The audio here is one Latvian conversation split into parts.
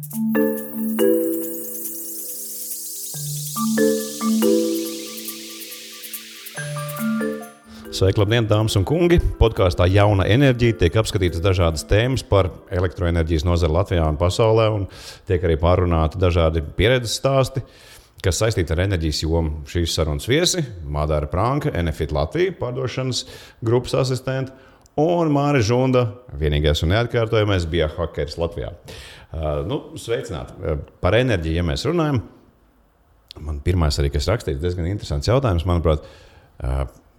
Sveiki, labdien, dāmas un kungi! Podkāstā Jauna enerģija tiek apskatītas dažādas tēmas par elektroenerģijas nozari Latvijā un pasaulē, un tiek arī pārunāti dažādi pieredzes stāsti, kas saistīti ar enerģijas jomu. Šīs sarunas viesi – Madara Pranka, Enefit Latvija, pārdošanas grupas asistente, un Māris Žunda, vienīgais un neatkārtojamais biohakeris Latvijā. Sveicināti! Par enerģiju, ja mēs runājam, man pirmais arī, kas rakstīts, diezgan interesants jautājums, manuprāt,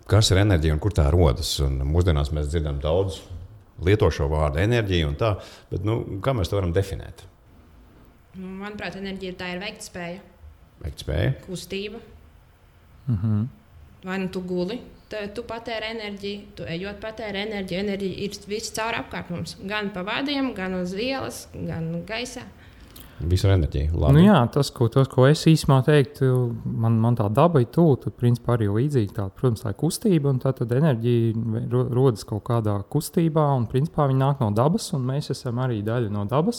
kas ir enerģija un kur tā rodas? Un mūsdienās mēs dzirdam daudz lieto šo vārdu enerģija un tā, bet kā mēs to varam definēt? Manuprāt, enerģija tā ir veiktspēja. Veiktspēja? Kustība. Mhm. Vai tu guli, tu patēri enerģiju, tu ejot patēri enerģiju. Enerģija ir viss caur apkārt mums. Gan pa vadiem, gan uz ielas, gan gaisā. Visu enerģiju. Labi. Tas, ko es īsumā teiktu, man tā daba ir tuvu, tad principā arī līdzīgi tā, protams, tā ir kustība, un tad enerģija rodas kaut kādā kustībā, un principā viņa nāk no dabas, un mēs esam arī daļa no dabas,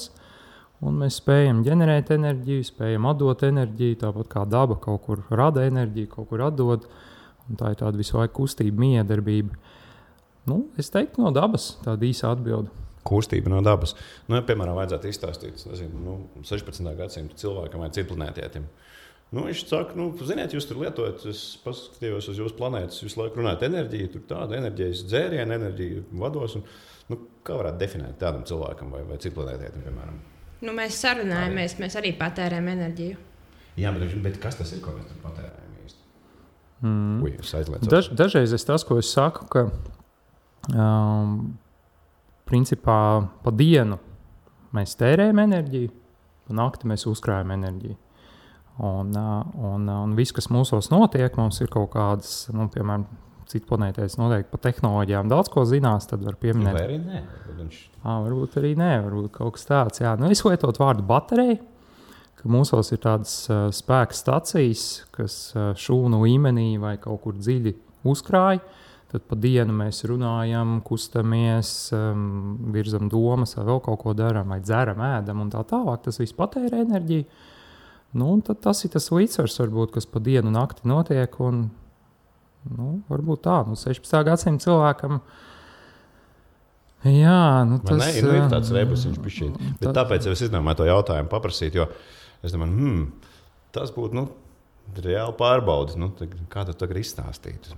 un mēs spējam ģenerēt enerģiju, spējam atdot enerģiju, tāpat kā daba kaut kur rada enerģiju, kaut kur atdod, un tā ir tāda visu laiku kustība, miedarbība. Es teiktu no dabas, tāda īsa atbilde. Kustība no dabas. Piemēram, vajadzētu izstāstīt 16. gadsimta cilvēkam vai citplanētietim. Viņš saka, ziniet, jūs tur lietojat, es paskatījos uz jūsu planētas, visu laiku runājat enerģiju, tur tāda enerģijas dzēriena, enerģija vados. Kā varētu definēt tādam cilvēkam vai citplanētietim, piemēram? Mēs sarunājamies, mēs arī patērējam enerģiju. Jā, bet kas tas ir, ko mēs tur patērējam īsti? Es aizliecu. Dažreiz tas, ko es saku, ka principā pa dienu mēs tērējam enerģiju, pa nakti mēs uzkrājam enerģiju. Un viss, kas mūsos notiek, mums ir kaut kādas, piemēram, citplanētēs noteikti par tehnoloģijām daudz ko zinās, tad var pieminēt. Vai arī nē? Varbūt arī nē, varbūt kaut kas tāds. Jā. Es lietot vārdu baterija, ka mūsos ir tādas spēka stacijas, kas šūnu līmenī vai kaut kur dziļi uzkrāj. Tad pa dienu mēs runājam, kustamies, virzam domas, vai vēl kaut ko darām, vai dzeram, ēdam un tā tālāk. Tas viss patērē enerģiju. Tad tas ir tas līdzsvars, varbūt, kas pa dienu nakti notiek. Un, varbūt tā, 16. gadsimta cilvēkam. Jā, tas ir tāds rebusiņš pišķīt. Bet tāpēc es izdomāju to jautājumu paprasīt, jo es domāju, tas būtu reāli pārbaudis. Kā tu tagad izstāstītu?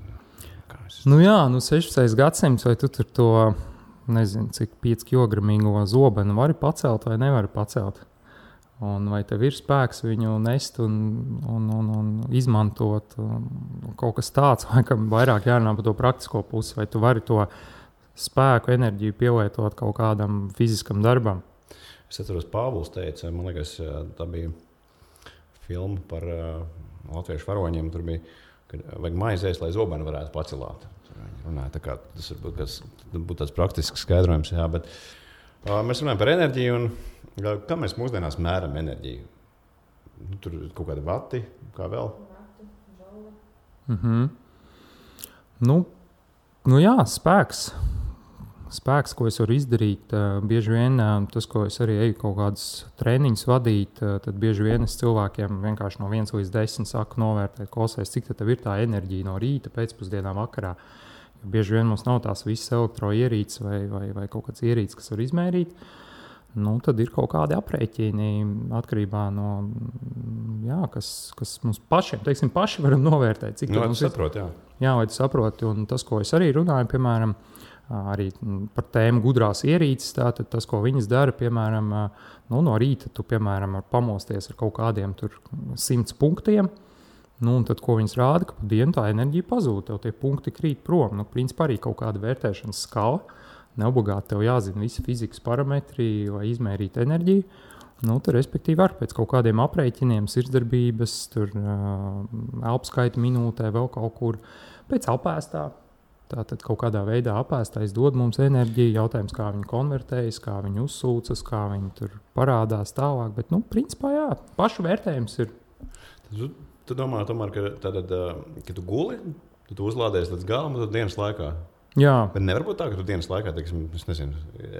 16. gadsimts, vai tu tur to, nezinu, cik 5 kilogramīgo zobenu vari pacelt vai nevari pacelt. Un vai tev ir spēks viņu nest un izmantot kaut kas tāds, vai kam vairāk jārunā par to praktisko pusi, vai tu vari to spēku, enerģiju pielietot kaut kādam fiziskam darbam. Es atceros, Pāvils teica, man liekas, tā bija filma par latviešu varoņiem, tur bija, kad vajag maizēs, lai zobeni varētu pacelāt. Runāja, tā kā tas būtu tāds praktisks skaidrojums, jā, bet mēs runājam par enerģiju un kā mēs mūsdienās mēram enerģiju? Tur ir kaut kādi vati, kā vēl? Vati, jā, spēks. Spēks, ko es varu izdarīt, bieži vien tas, ko es arī eju kaut kādus treniņus vadīt, tad bieži vien es cilvēkiem vienkārši no 1 līdz 10 saku novērtēt, klausies, cik tev ir tā enerģija no rīta, pēcpusdienā, vakarā. Jo bieži vien mums nav tās visas elektroierīces vai kaut kāds ierīces, kas var izmērīt. Tad ir kaut kādi aprēķini atkarībā no, kas mums pašiem, paši varam novērtēt. Cik tu saproti, jā. Jā, vai tu saproti, un tas, ko es arī runāju, piemēram, arī par tēmu gudrās ierīces, tātad tas, ko viņas dara, piemēram, no rīta tu, piemēram, pamosties ar kaut kādiem tur 100 punktiem, un tad, ko viņas rāda, ka pa dienu tā enerģija pazūd, tev tie punkti krīt prom. Principā arī kaut kāda vērtēšanas skala, neobligāti tev jāzina visi fizikas parametri, lai izmērītu enerģiju. Tad, respektīvi, var pēc kaut kādiem aprēķiniem, sirdsdarbības, tur elpskaita minūtē, vēl kaut kur pēc apēstā. Tātad kaut kādā veidā apēstais dod mums enerģiju, jautājums, kā viņi konvertējas, kā viņi uzsūcas, kā viņi tur parādās tālāk. Bet, principā, jā, pašu vērtējums ir. Tu domā, tomēr, ka tu guli, tu uzlādēsi līdz galam, tad dienas laikā? Jā. Bet nevar būt tā, ka tu dienas laikā, teiksim, es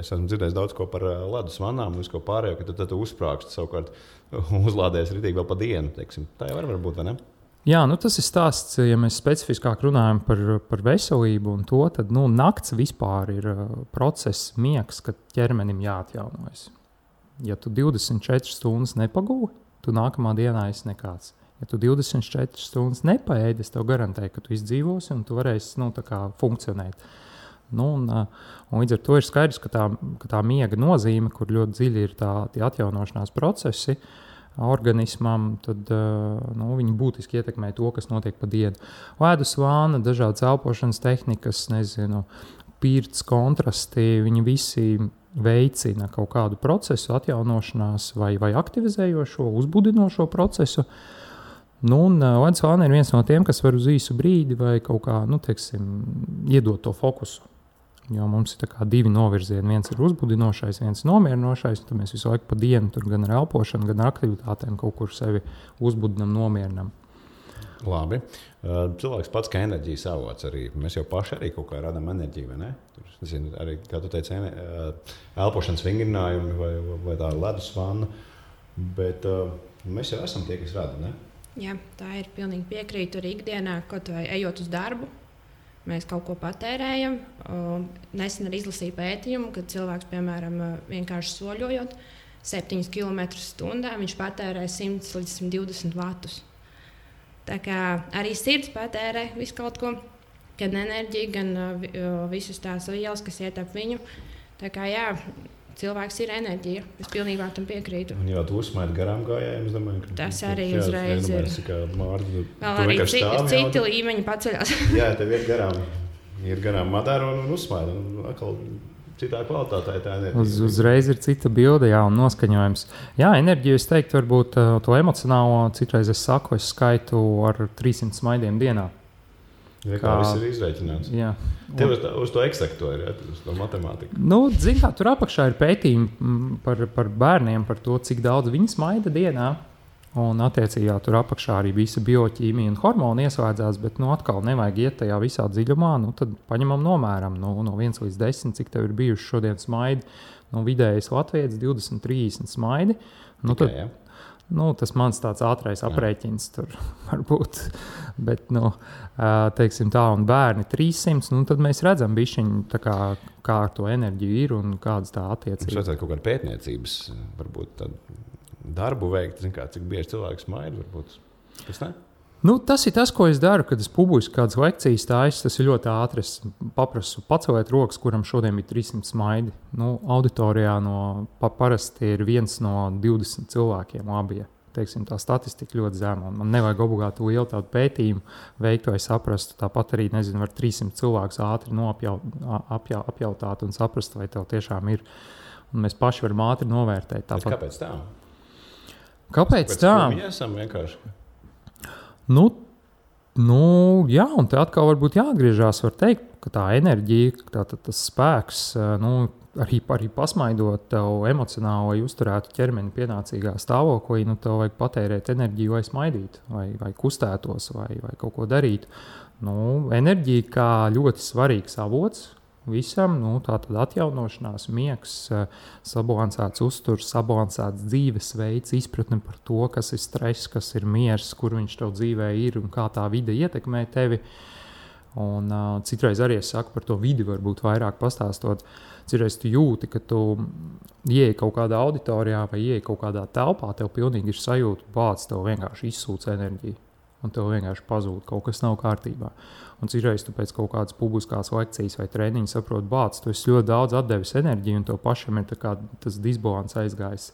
esmu dzirdējis daudz ko par ledus vannām un visu ko pārējo, ka tad tu uzsprāgsti savukārt uzlādējies ritīgi vēl pa dienu, teiksim. Tā jau var būt, vai ne? Jā, tas ir stāsts, ja mēs specifiskāk runājam par veselību un to, tad nakts vispār ir process, miegs, kad ķermenim jāatjaunojas. Ja tu 24 stundas nepagūvi, tu nākamā dienā esi nekāds. Ja tu 24 stundas nepaēdi, es tev garantēju, ka tu izdzīvosi un tu varēsi funkcionēt. Un līdz ar to ir skaidrs, ka tā miega nozīme, kur ļoti dziļi ir tie atjaunošanās procesi organismam, tad viņi būtiski ietekmē to, kas notiek pa dienu. Ledus vāna, dažādas elpošanas tehnikas, pirts, kontrasti, viņi visi veicina kaut kādu procesu atjaunošanās vai aktivizējošo, uzbudinošo procesu. Ledus vāna ir viens no tiem, kas var uz īsu brīdi vai kaut kā, iedot to fokusu. Jo mums ir divi novirzieni. Viens ir uzbudinošais, viens nomierinošais. Tad mēs visu laiku pa dienu tur gan ar elpošanu, gan ar aktivitātēm kaut kur sevi uzbudinam, nomierinam. Labi. Cilvēks pats kā enerģijas avots arī. Mēs jau paši arī kaut kā radām enerģiju, vai ne? Tur, arī, kā tu teici, elpošanas vingrinājumi vai tā ledus vanna. Bet mēs jau esam tie, kas rada, ne? Jā, tā ir pilnīgi piekrītu arī ikdienā, kaut vai ejot uz darbu. Mēs kaut ko patērējam. Nesen arī izlasīju pētījumu, kad cilvēks, piemēram, vienkārši soļojot 7 km/h, viņš patērē 100 līdz 120 vatus. Tā kā arī sirds patērē visu kaut ko, gan enerģiju, gan visas tās vielas, kas iet ap viņu. Tā kā jā, cilvēks ir enerģija. Es pilnībā tam piekrītu. Un jau tu uzsmaidi garām gājējiem, es domāju, ka tas arī uzreiz ir. Vēl arī citi līmeņi paceļās. Jā, tev ir garām madara un uzsmaidi. Atkal citā kvalitātē tā enerģija. Uzreiz ir cita bilde, jā, un noskaņojums. Jā, enerģiju, es teiktu, varbūt to emocionālo, citreiz es saku, es skaitu ar 300 smaidiem dienā. Kā viss ir izreikināts. Jā. Tev uz to eksakto ir, uz to matemātiku. Zin kā, tur apakšā ir pētījumi par bērniem, par to, cik daudz viņi smaida dienā. Un attiecībā tur apakšā arī visa bioķīmija un hormoni ieslēdzās, bet atkal nevajag iet tajā visā dziļumā. Tad paņemam nomēram no 1 līdz 10, cik tev ir bijuši šodien smaidi. Vidējais Latvijas 20-30 smaidi. Tas mans tāds ātrais aprēķins tur var būt. Bet, teiksim tā, un bērni 300, tad mēs redzam bišķiņu, kā ar to enerģiju ir un kādas tā attiecības. Mums vajadzētu kaut kādu pētniecības, varbūt tādu darbu veikt, cik bieži cilvēks smaida, varbūt. Tas ne? Tas ir tas, ko es daru, kad es publiski kādas lekcijas stāstu. Tas ir ļoti ātri. Es paprasu paceliet rokas, kuram šodien bija 300 smaidi. Auditorijā parasti ir 1 no 20 cilvēkiem labie. Teiksim, tā statistika ļoti zema. Man nevajag obligāti lielu tādu pētījumu veikt, vai saprastu. Tāpat arī, var 300 cilvēkus ātri apjautāt un saprast, vai tev tiešām ir. Un mēs paši varam ātri novērtēt. Tāpat. Kāpēc tā? Kāpēc tā? Mēs esam vienkārši. Jā, un te atkal varbūt jāatgriežās, var teikt, ka tā enerģija, tas spēks, arī pasmaidot tev emocionāli, lai uzturētu ķermeni pienācīgā stāvoklī, tev vajag patērēt enerģiju, lai smaidītu, vai kustētos, vai kaut ko darītu. Enerģija kā ļoti svarīgs avots visam, tātad atjaunošanās, miegs, sabalansēts uzturs, sabalansēts dzīvesveids, izpratne par to, kas ir stress, kas ir miers, kur viņš tev dzīvē ir un kā tā vide ietekmē tevi. Un citreiz arī es saku par to vidi, varbūt vairāk pastāstot. Citreiz tu jūti, ka tu ieej kaut kādā auditorijā vai ieej kaut kādā telpā, tev pilnīgi ir sajūta, bāc, tev vienkārši izsūc enerģiju. Un tev vienkārši pazūd, kaut kas nav kārtībā. Un citreiz tu pēc kaut kādas publiskās lekcijas vai treniņa saproti, bāc, tu esi ļoti daudz atdevis enerģiju un tev pašam ir tas disbalans aizgājis.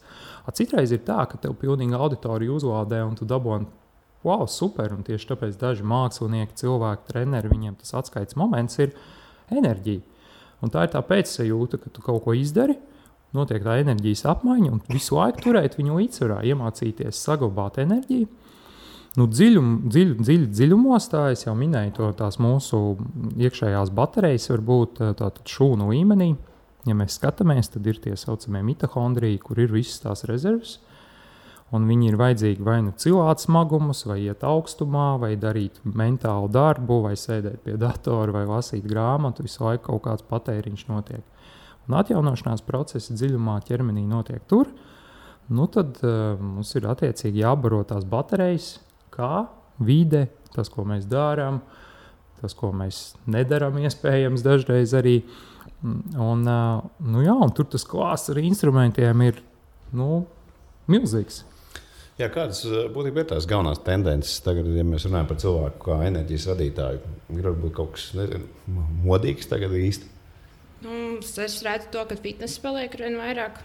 Citreiz ir tā, ka tev pilnīgi auditoriju uzlādē un tu daboni, wow, super, un tieši tāpēc daži mākslinieki, cilvēki, treneri, viņiem tas atskaites moments ir enerģija. Un tā ir tā pēcsajūta, ka tu kaut ko izdari, notiek tā enerģijas apmaiņa un visu laiku turēt viņu līdzsvarā, iemācīties saglabāt enerģiju. Dziļumos, tā es jau minēju, tās mūsu iekšējās baterijas var būt šūnu līmenī. Ja mēs skatāmies, tad ir tie saucamie mitohondriji, kur ir visas tās rezerves. un viņi ir vajadzīgi vai nu cilāt smagumus, vai iet augstumā, vai darīt mentālu darbu, vai sēdēt pie datora, vai lasīt grāmatu, visu laiku kaut kāds patēriņš notiek. Un atjaunošanās procesi dziļumā ķermenī notiek tur, nu tad mums ir attiecīgi jābaro tās baterijas, kā vide, tas, ko mēs darām, tas, ko mēs nedarām, iespējams, dažreiz arī. Un tur tas klāsts ar instrumentiem ir milzīgs. Jā, kādas būtībā ir tās galvenās tendences? Tagad, ja mēs runājam par cilvēku kā enerģijas radītāju, ir varbūt kaut kas modīgs tagad īsti? Es redzu to, ka fitness paliek arvien vairāk.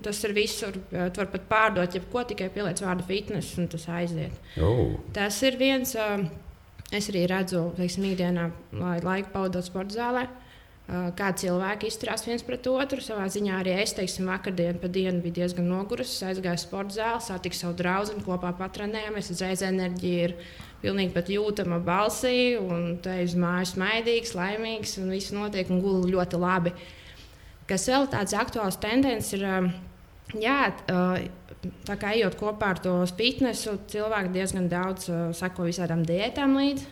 Tas ir visur. Tu vari pat pārdot, ja ko tikai pieliec vārdu fitness, un tas aiziet. Tas ir viens. Es arī redzu, ikdienā, lai laiku pavadot sporta zālē, kā cilvēki izturās viens pret otru. Savā ziņā arī es, vakardien pa dienu biju diezgan nogurusi. Aizgāju sporta zāli, satiku savu draugu, kopā patrenējāmies. Uzreiz enerģija ir pilnīgi pat jūtama balsī, un te uz mājas maidīgs, laimīgs, un viss notiek un guli ļoti labi. Kas vēl tāds aktuāls tendence ir, tā kā ejot kopā ar to fitnesu, cilvēki diezgan daudz sako visādām diētām līdzi.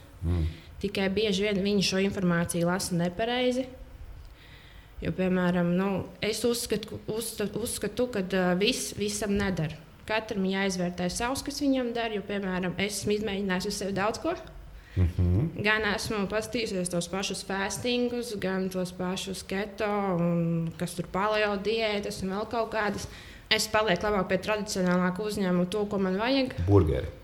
Tikai bieži vien viņi šo informāciju lasa nepareizi. Jo, piemēram, es uzskatu, ka visam nedara. Katram jāizvērtē savs, kas viņam dara. Jo, piemēram, es esmu izmēģinājis uz sevi daudz ko. Gan esmu paskatījusies tos pašus fastingus, gan tos pašus keto, un kas tur paleo diētas un vēl kaut kādas. Es palieku labāk pie tradicionālāka uzņēmuma, to, ko man vajag. Burgeri.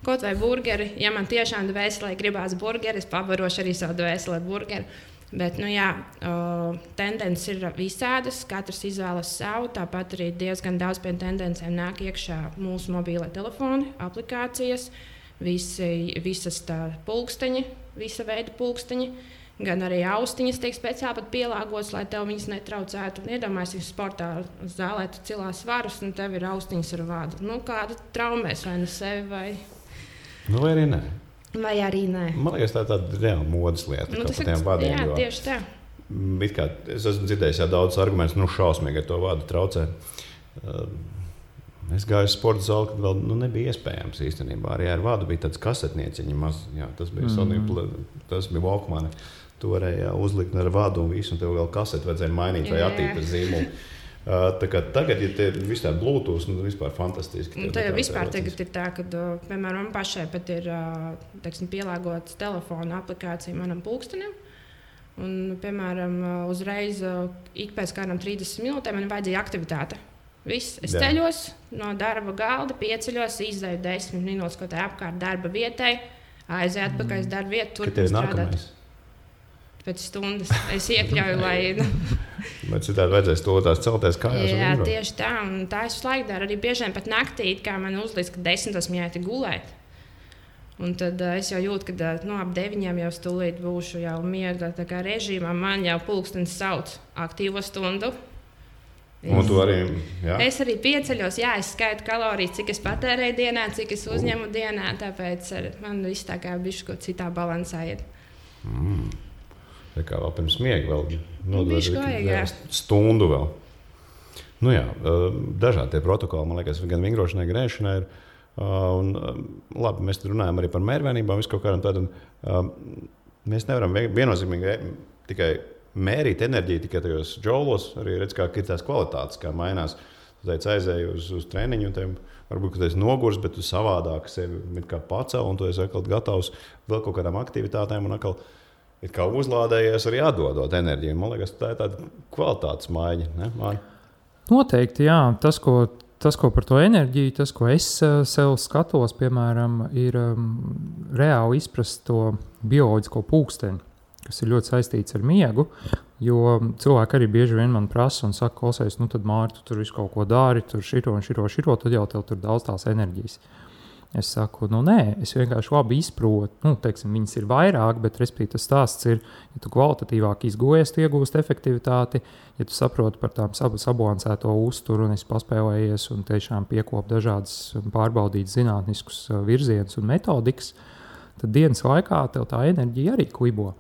Kaut vai burgeri. Ja man tiešām dvēselē gribās burgeri, es pabarošu arī savu dvēselē burgeri. Bet, tendences ir visādas, katrs izvēlas savu. Tāpat arī diezgan daudz pie tendencēm nāk iekšā mūsu mobīlē telefoni, aplikācijas. Visas tā pulksteņi, visa veida pulksteņi, gan arī austiņas tiek speciāli pat pielāgotas, lai tev viņas netraucētu. Iedomājieties, sportā zālē tu cilās svarus, un tev ir austiņas ar vādu. Kāda traumēs vai nu sevi, vai... Vai arī nē. Vai arī nē. Man liekas, tā ir tāda reāla modes lieta. Tas ir, jā, tieši tā. Es esmu dzirdējis daudzus argumentus, šausmīgi ar to vādu traucē. Es gāju uz sporta zāli, kad vēl nebija iespējams īstenībā. Arī ar vādu bija tāds kasetnieciņi maz. Jā, tas bija tas bija Walkman. Tu varēji uzlikt ar vādu un visu, un tev vēl kaseti vajadzēja mainīt vai attīstīt zīmolu. Tagad, ja te ir viss tā Bluetooth, vispār fantastiski. Tā jau vispār tagad ir tā, ka, piemēram, man pašai pat ir pielāgotas telefona aplikācija manam pulkstenim. Un, piemēram, uzreiz ik pēc kādām 30 minūtēm man vajadzīja aktivitāte. Viss. Es ceļos no darba galda, pieceļos, izdeju 10 minūtes kaut kā apkārt darba vietai, aizēju atpakaļ uz darba vietu, turpinu strādāt. Pēc stundas es iekļauju, lai... Bet citādi vajadzēs to tās celties kājās. Jā, tieši tā. Un tā es laiku daru arī biežiem pat naktī, kā man uzlīdz, ka 10 jāiet gulēt. Un tad es jau jūtu, ka ap 9 jau stulīt būšu jau miega režīmā. Man jau pulkstenis sauc aktīvo stundu. Es arī pieceļos, es skaitu kalorijas, cik es patērēju dienā, cik es uzņemu dienā. Tāpēc man viss tā kā bišķi kaut citā balansā ir. Tā kā vēl pirms miega vēl nodod stundu vēl. Dažādi tie protokoli, man liekas, gan vingrošanai, gan ēšanai ir. Labi, mēs runājam arī par mērvienībām, visu kaut kādam tādam. Mēs nevaram viennozīmīgi tikai mērīt enerģiju tikai tajos džaulos, arī redz, kā ir tās kvalitātes, kā mainās. Tu teici, aizēji uz treniņu, un tev varbūt, ka tu esi nogurs, bet tu savādāk sevi kā pacel, un tu esi atkal gatavs vēl kaut kādām aktivitātēm, un atkal ir kā uzlādējies arī atdodot enerģiju. Man liekas, tā ir tāda kvalitātes maiņa, ne, Māri? Noteikti, jā. Tas, ko par to enerģiju, tas, ko es sev skatos, piemēram, ir reāli izprast to bioloģisko pulksteni, kas ir ļoti saistīts ar miegu, jo cilvēki arī bieži vien man prasa un saka, klausies, tad Māri, tu tur visu kaut ko dari, tur šito, tad jau tev tur daudz tās enerģijas. Es saku, nē, es vienkārši labi izprotu, viņas ir vairāk, bet respektīvi tas stāsts ir, ja tu kvalitatīvāk izgojies, tu iegūst efektivitāti, ja tu saproti par tām sabalansēto uzturu un esi paspēlējies un tiešām piekop dažādas pārbaudīt zinātniskus virzienus un metodikas, tad dienas laikā tev tā enerģija arī klibo.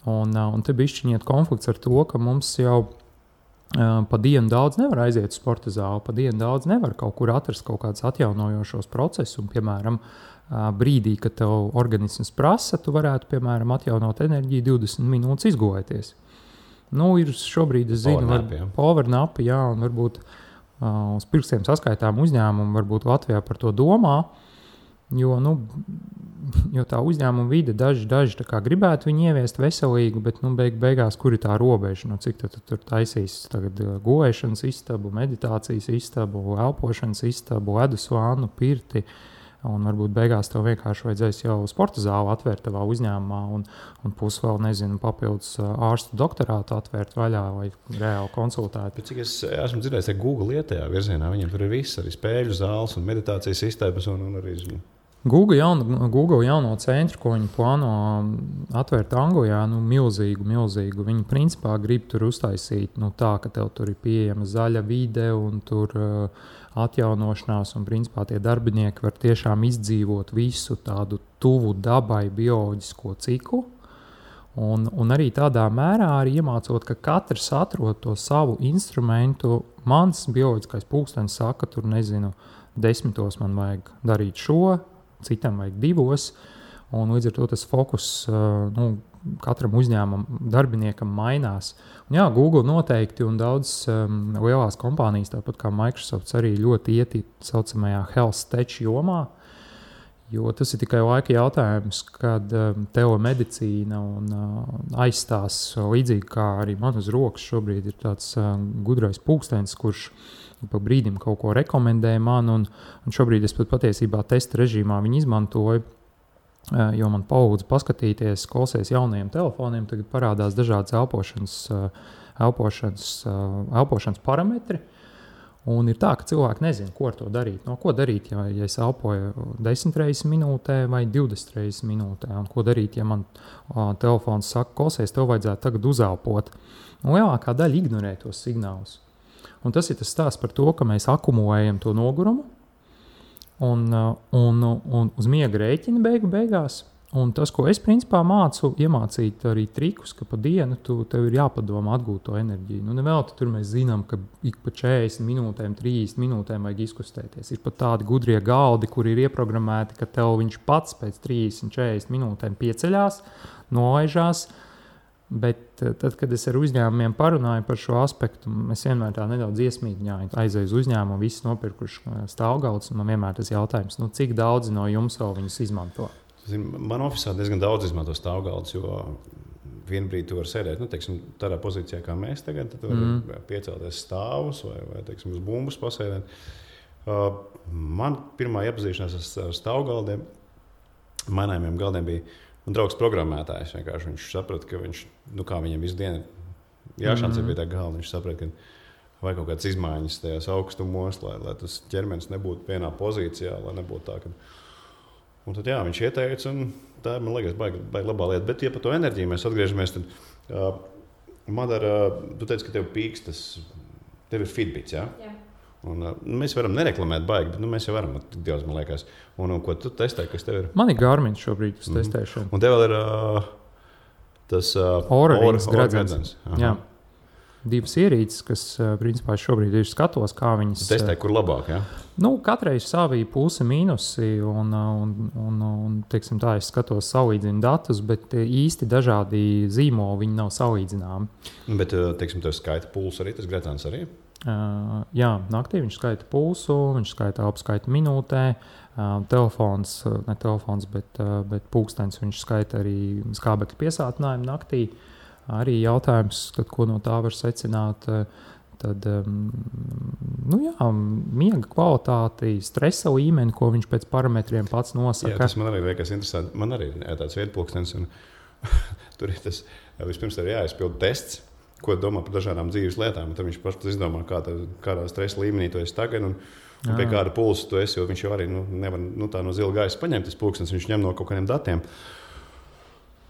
Un te bišķiņiet konflikts ar to, ka mums jau Pa dienu daudz nevar aiziet uz sporta zāli, pa dienu daudz nevar kaut kur atrast kaut kādus atjaunojošos procesus. Un, piemēram, brīdī, kad tev organisms prasa, tu varētu, piemēram, atjaunot enerģiju 20 minūtes izgulēties. Nu, ir šobrīd, es zinu, powernapi, jā, un varbūt uz pirkstiem saskaitām uzņēmumu, varbūt Latvijā par to domā, jo tā uzņēmuma vide daži tā kā gribētu viņu ieviest veselīgu, bet beigās, kur ir tā robeža, cik tur taisīs tagad gulēšanas istabu, meditācijas istabu, elpošanas istabu, ledus vānu, pirti, un varbūt beigās tev vienkārši vajadzēs jau sporta zāli atvērt tavā uzņēmumā un pusi vēl, nezinu, papildus ārstu doktorātu atvērt vaļā vai reāli konsultēt. Bet cik es esmu dzirdējis, ka Google iet tajā virzienā, viņiem tur ir viss, arī spēļu zāles un meditācijas istabas un arī... Google jauno centru, ko viņi plāno atvērt Anglijā, milzīgu. Viņi principā grib tur uztaisīt tā, ka tev tur ir pieejama zaļa vide un tur atjaunošanās, un principā tie darbinieki var tiešām izdzīvot visu tādu tuvu dabai bioloģisko ciklu. Un arī tādā mērā arī iemācot, ka katrs atrod to savu instrumentu. Mans bioloģiskais pulkstenis saka, tur nezinu, 10 man vajag darīt šo, citam vajag 2, un līdz ar to tas fokus katram uzņēmumam, darbiniekam mainās. Un jā, Google noteikti un daudz lielās kompānijas, tāpat kā Microsoft, arī ļoti iet saucamajā health tech jomā, jo tas ir tikai laika jautājums, kad telemedicīna aizstās līdzīgi kā arī man uz rokas šobrīd ir tāds gudrais pulkstenis, kurš pa brīdim kaut ko rekomendēja man, un šobrīd es pat patiesībā testa režīmā viņu izmantoju, jo man palūdza paskatīties, klausies jaunajiem telefoniem, tagad parādās dažādas elpošanas parametri, un ir tā, ka cilvēki nezina, ko ar to darīt. Ko darīt, ja es elpoju 10 reizes minūtē vai 20 reizes minūtē, un ko darīt, ja man telefons saka, klausies, tev vajadzētu tagad uzelpot. Un lielākā daļa ignorē tos signālus. Un tas ir tas stāsts par to, ka mēs akumulējam to nogurumu un uz miega rēķina beigās. Un tas, ko es principā mācu, iemācīt arī trikus, ka pa dienu tev ir jāpadomā atgūt to enerģiju. Nevelti tur mēs zinām, ka ik pa 40 minūtēm, 30 minūtēm vajag izkustēties. Ir pat tādi gudrie galdi, kur ir ieprogrammēti, ka tev viņš pats pēc 30-40 minūtēm pieceļās, nolaižās. Bet tad, kad es ar uzņēmumiem parunāju par šo aspektu, es vienmēr tā nedaudz iesmīgņāju, aizēju uz uzņēmumu, visi nopirkuši stāvgalds, un man vienmēr tas jautājums, cik daudzi no jums vēl viņus izmanto? Man ofisā diezgan daudz izmanto stāvgaldus, jo vienu brīdi tu vari sēdēt, teiksim, tādā pozīcijā kā mēs tagad, tad tu vari piecelties stāvus vai teiksim, uz bumbas pasēdēt. Man pirmā iepazīšanās ar stāvgaldiem, mainājumiem galdiem bija un draugs programmētājs. Viņš saprata, ka viņš, kā viņam visu dienu jāšancē pie tā galda, viņš saprata, ka vajag kaut kādas izmaiņas tajās augstumos, lai tas ķermenis nebūtu vienā pozīcijā, lai nebūtu tā, ka... Un tad jā, viņš ieteica, un tā ir, man liekas, baigi labā lieta. Bet, ja par to enerģiju mēs atgriežamies, tad, Madara, tu teici, ka tev pīkstas, tev ir Fitbits, jā? Jā. Un, mēs varam nereklamēt baigi, bet mēs jau varam, tik daudz, man liekas. Un ko tu testē, kas tev ir? Man ir Garmin šobrīd uz testēšanu. Un tev vēl ir tas Oura gredzens. Jā. 2 ierīces, kas principā šobrīd ir skatos, kā viņas... Testē, kur labāk, jā? Katrai ir savi plusi, mīnusi, un teiksim tā, es skatos salīdzinu datus, bet īsti dažādi zīmoli, viņi nav salīdzināmi. Bet, teiksim, tev skaita pulsu arī, tas gredzens arī? Jā, naktī viņš skaita pulsu, viņš skaita apskaita minūtē, ne telefons, bet pulkstenis viņš skaita arī skābekļa piesātinājumu naktī. Arī jautājums, tad, ko no tā var secināt, tad, miega kvalitāti, stresa līmeni, ko viņš pēc parametriem pats nosaka. Jā, tas man arī liekas interesanti. Man arī ir tāds viedpulkstenis, un tur ir tas, vispirms arī jāizpild tests, ko domā par dažādām dzīves lietām. Tad viņš pats izdomā, kādā stresa līmenī tu esi tagad un pie kāda pulsa tu esi, jo viņš jau arī nevar tā no zila gaisa paņemt tas pulkstenis, viņš ņem no kaut kādiem datiem.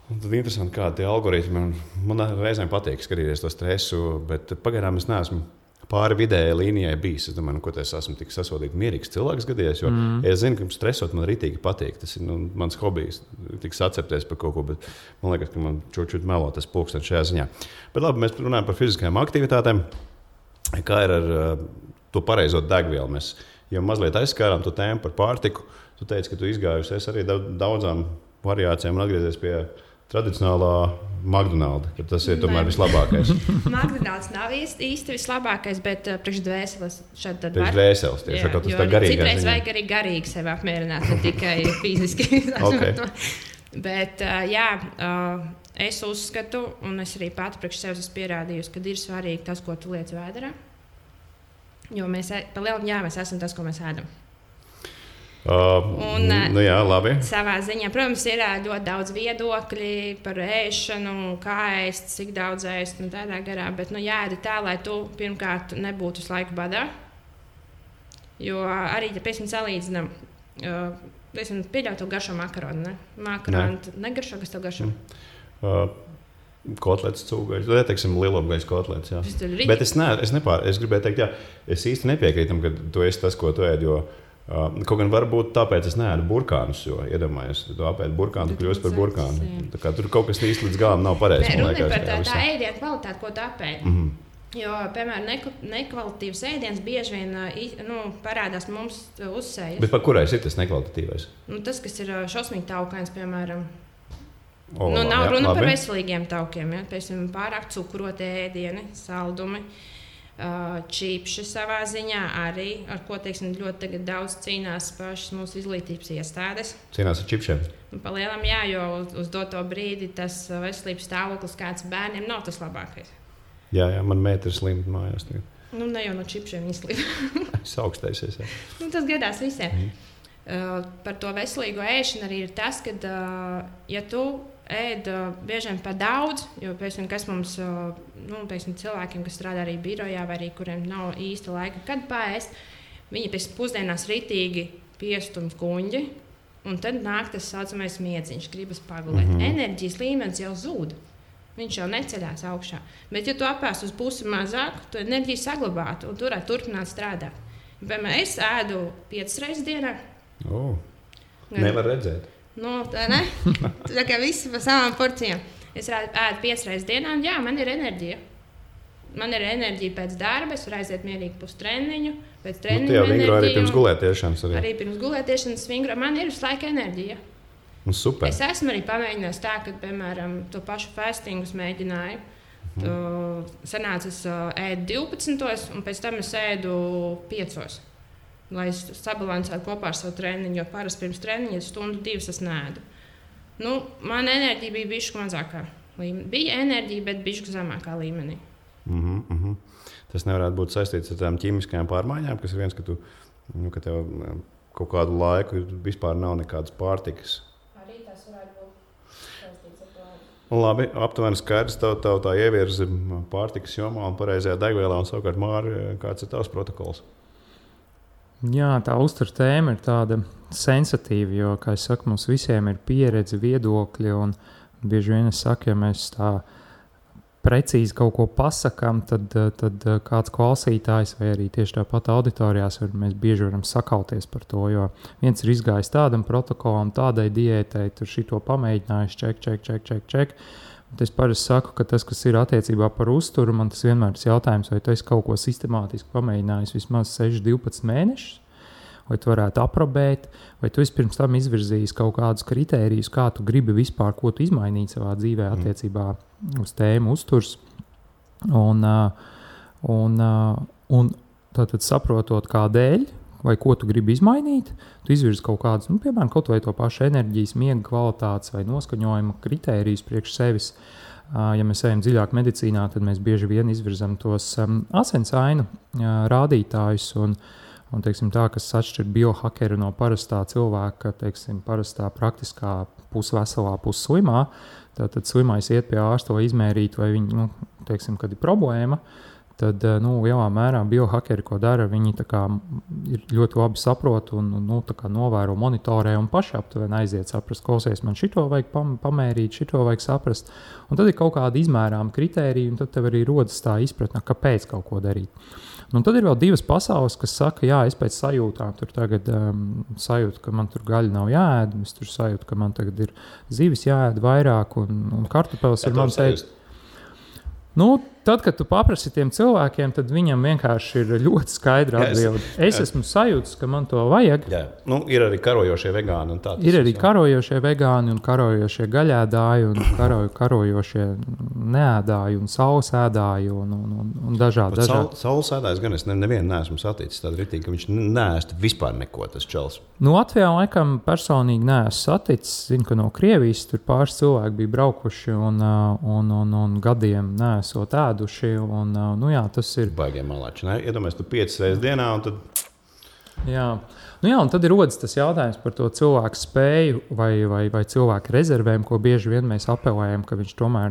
Un tad interesanti, kādi tie algoritmi. Man reizēm patīk skatīties to stresu, bet pagaidām es neesmu pāri vidējai līnijai bijis. Es domāju, ko es esmu tik sasodīti mierīgs cilvēks gadījies, jo es zinu, ka stresot man ritīgi patīk. Tas ir mans hobijs, tik sacepties par kaut ko, bet man liekas, ka man čučut melo tas pulkstenis šajā ziņā. Bet labi, mēs runājam par fiziskajām aktivitātēm. Kā ir ar to pareizo degvielu? Mēs jau mazliet aizskārām to tēmu par pārtiku. Tu teici, ka tu izgājusies arī daudzām variācijām un atgriezies pie tradicionālā McDonald's, ka tas ir tomēr vislabākais. McDonald's nav īsti vislabākais, bet priekš dvēseles šādi tad var. Priekš dvēseles, tieši kā tas tā garīgais. Citreiz vajag arī garīgi sevi apmierināt, ne tikai fiziski. Okay. Bet es uzskatu, un es arī pati priekš sevis esmu pierādījusi, ka ir svarīgi tas, ko tu liec vēderā. Jo mēs esam tas, ko mēs ēdam. Jā, labi. Savā ziņā, protams, ir ļoti daudz viedokļi par ēšanu, kā ēst, cik daudz ēst un tādā garā. Bet jāēd tā, lai tu pirmkārt nebūtu visu laiku badā. Jo arī, ja piemēram salīdzinām, pieļauj to garšo makaronu. Ne? Makaronu negaršo, kas tev garšo? Kotlets, cūgaļas, vai teiksim lielopgaļas kotlets. Jā. Bet es gribēju teikt, jā, es īsti nepiekrītam, ka tu esi tas, ko tu ēd, jo kaut gan varbūt tāpēc es neēdu burkānus, jo iedomājies, tu apēdi burkānu, tu kļūsi par burkānu. Tā kā tur kaut kas īsti līdz galam nav pareizi. Runa ir par tā ēdienu kvalitāti, ko tu apēdi. Jo, piemēram, nekvalitatīvs ēdiens bieži vien parādās mums uzsējas. Bet par kurais ir tas nekvalitatīvais? Tas, kas ir šausmīgi taukains, piemēram. Nav runa par veselīgiem taukiem, ja? Piemēram, pārāk cukuroti ēdieni, saldumi, čipši savā ziņā arī, ar ko ļoti daudz cīnās pašas mūsu izglītības iestādes. Cīnās ar čipšiem? Palielam, jā, jo uz doto brīdi tas veselības stāvoklis kāds bērniem nav tas labākais. Jā, man meita ir slima mājās. Ne jau no čipšiem izslima. Es augstēsies, jā. Tas gadās visiem. Par to veselīgo ēšanu arī ir tas, ka, ja tu ēd bieži vien par daudz, jo kas mums, cilvēkiem, kas strādā arī birojā, vai arī kuriem nav īsta laika, kad paēst, viņi pēc pusdienās ritīgi piestumj kuņģi, un tad nāk tas saucamais miedziņš, gribas pagulēt. Enerģijas līmenis jau zūd. Viņš jau neceļās augšā. Bet, ja tu apēst uz pusi mazāk, tu enerģiju saglabātu un turētu turpināt strādāt. Piemēram, es ēdu 5 reizes dienā. Nevar redzēt. Tā ne? Tā kā visi pa savām porcijām. Es ēdu 5 reizes dienā, un jā, man ir enerģija. Man ir enerģija pēc darba, es varu aiziet mierīgi pustreniņu. Pēc treniņu enerģiju. Arī pirms gulētiešanas. Arī pirms gulētiešanas vingro. Man ir visu laiku enerģija. Super. Es esmu arī pamēģinājis tā, ka, piemēram, to pašu fastingus mēģināju. Sanāca, es ēdu 12, un pēc tam es ēdu 5. Lai es sabalansētu kopā ar savu treniņu, jo parasti pirms treniņa 1-2 es neēdu. Man enerģija bija bišķi mazākā līmenī. Bija enerģija, bet bišķi zemākā līmenī. Tas nevarētu būt saistīts ar tām ķīmiskajām pārmaiņām, kas ir viens, ka ka tev kaut kādu laiku vispār nav nekādas pārtikas. Arī tas varētu būt saistīts ar to. Labi, aptuveni skaidrs, tev tā ievirzi pārtikas jomā un pareizajā degvielā, un savukārt, Māri, kāds ir tavs protokols? Jā, tā uzturu tēma ir tāda sensitīva, jo, kā es saku, mums visiem ir pieredze, viedokļi, un bieži vien es saku, ja mēs tā precīzi kaut ko pasakām, tad kāds klausītājs vai arī tieši tāpat auditorijās mēs bieži varam sakauties par to, jo viens ir izgājis tādam protokolam, tādai diētai, tur šito pamēģinājis, ček. Es parasti saku, ka tas, kas ir attiecībā par uzturu, man tas vienmēr ir jautājums, vai tu esi kaut ko sistemātiski pamēģinājis vismaz 6-12 mēnešus, vai tu varētu aprobēt, vai tu esi pirms tam izvirzījis kaut kādus kritērijus, kā tu gribi vispār, ko tu izmainīt savā dzīvē attiecībā uz tēmu uzturs. Un tātad saprotot, kādēļ, vai ko tu gribi izmainīt, tu izvirzi kaut kādus, piemēram, kaut vai to pašu enerģijas, miega kvalitātes vai noskaņojuma kritērijus priekš sevis. Ja mēs ejam dziļāk medicīnā, tad mēs bieži vien izvirzam tos asinsainu rādītājus un teiksim, tā, kas atšķir biohakeru no parastā cilvēka, teiksim, parastā praktiskā pusveselā, pusslimā. Tātad slimais iet pie ārsta, lai izmērītu, vai viņi, teiksim, kad ir problēma. Tad, lielā mērā biohakeri, ko dara, viņi tā kā ir ļoti labi saprot un tā kā novēro, monitorē un paši aptuveni aiziet saprast, klausies, man šito vajag pamērīt, šito vajag saprast. Un tad ir kaut kāda izmērāma kritērija, un tad tev arī rodas tā izpratne, kāpēc kaut ko darīt. Un tad ir vēl divas pasaules, kas saka, jā, es pēc sajūtām tur tagad sajūtu, ka man tur gaļa nav jāēd, es tur sajūtu, ka man tagad ir zivis jāēd vairāk un kartupeles ir mans ēst. tad, kad tu paprasti tiem cilvēkiem, tad viņam vienkārši ir ļoti skaidra atbilde. Es esmu sajūts, ka man to vajag. Jā. Nu, ir arī karojošie vegāni. Ir arī karojošie vegāni un karojošie gaļēdāji un karojošie neēdāji un saulesēdāji un dažādi. Saulesēdājs gan es nevienu neesmu saticis tādu ritīgi, ka viņš neēst vispār neko tas čels. Nu, Latvijā laikam personīgi neesmu saticis. Zinu, ka no Krievijas tur pāris cilvēki bija braukuši un gadiem neesot ēduši. Nu jā, tas ir... Baigiem malāči, ne? Iedomājies, tu 5 reizes dienā un tad... Jā. Nu jā, un tad ir rodas tas jautājums par to cilvēku spēju vai cilvēku rezervēm, ko bieži vien mēs apelējam, ka viņš tomēr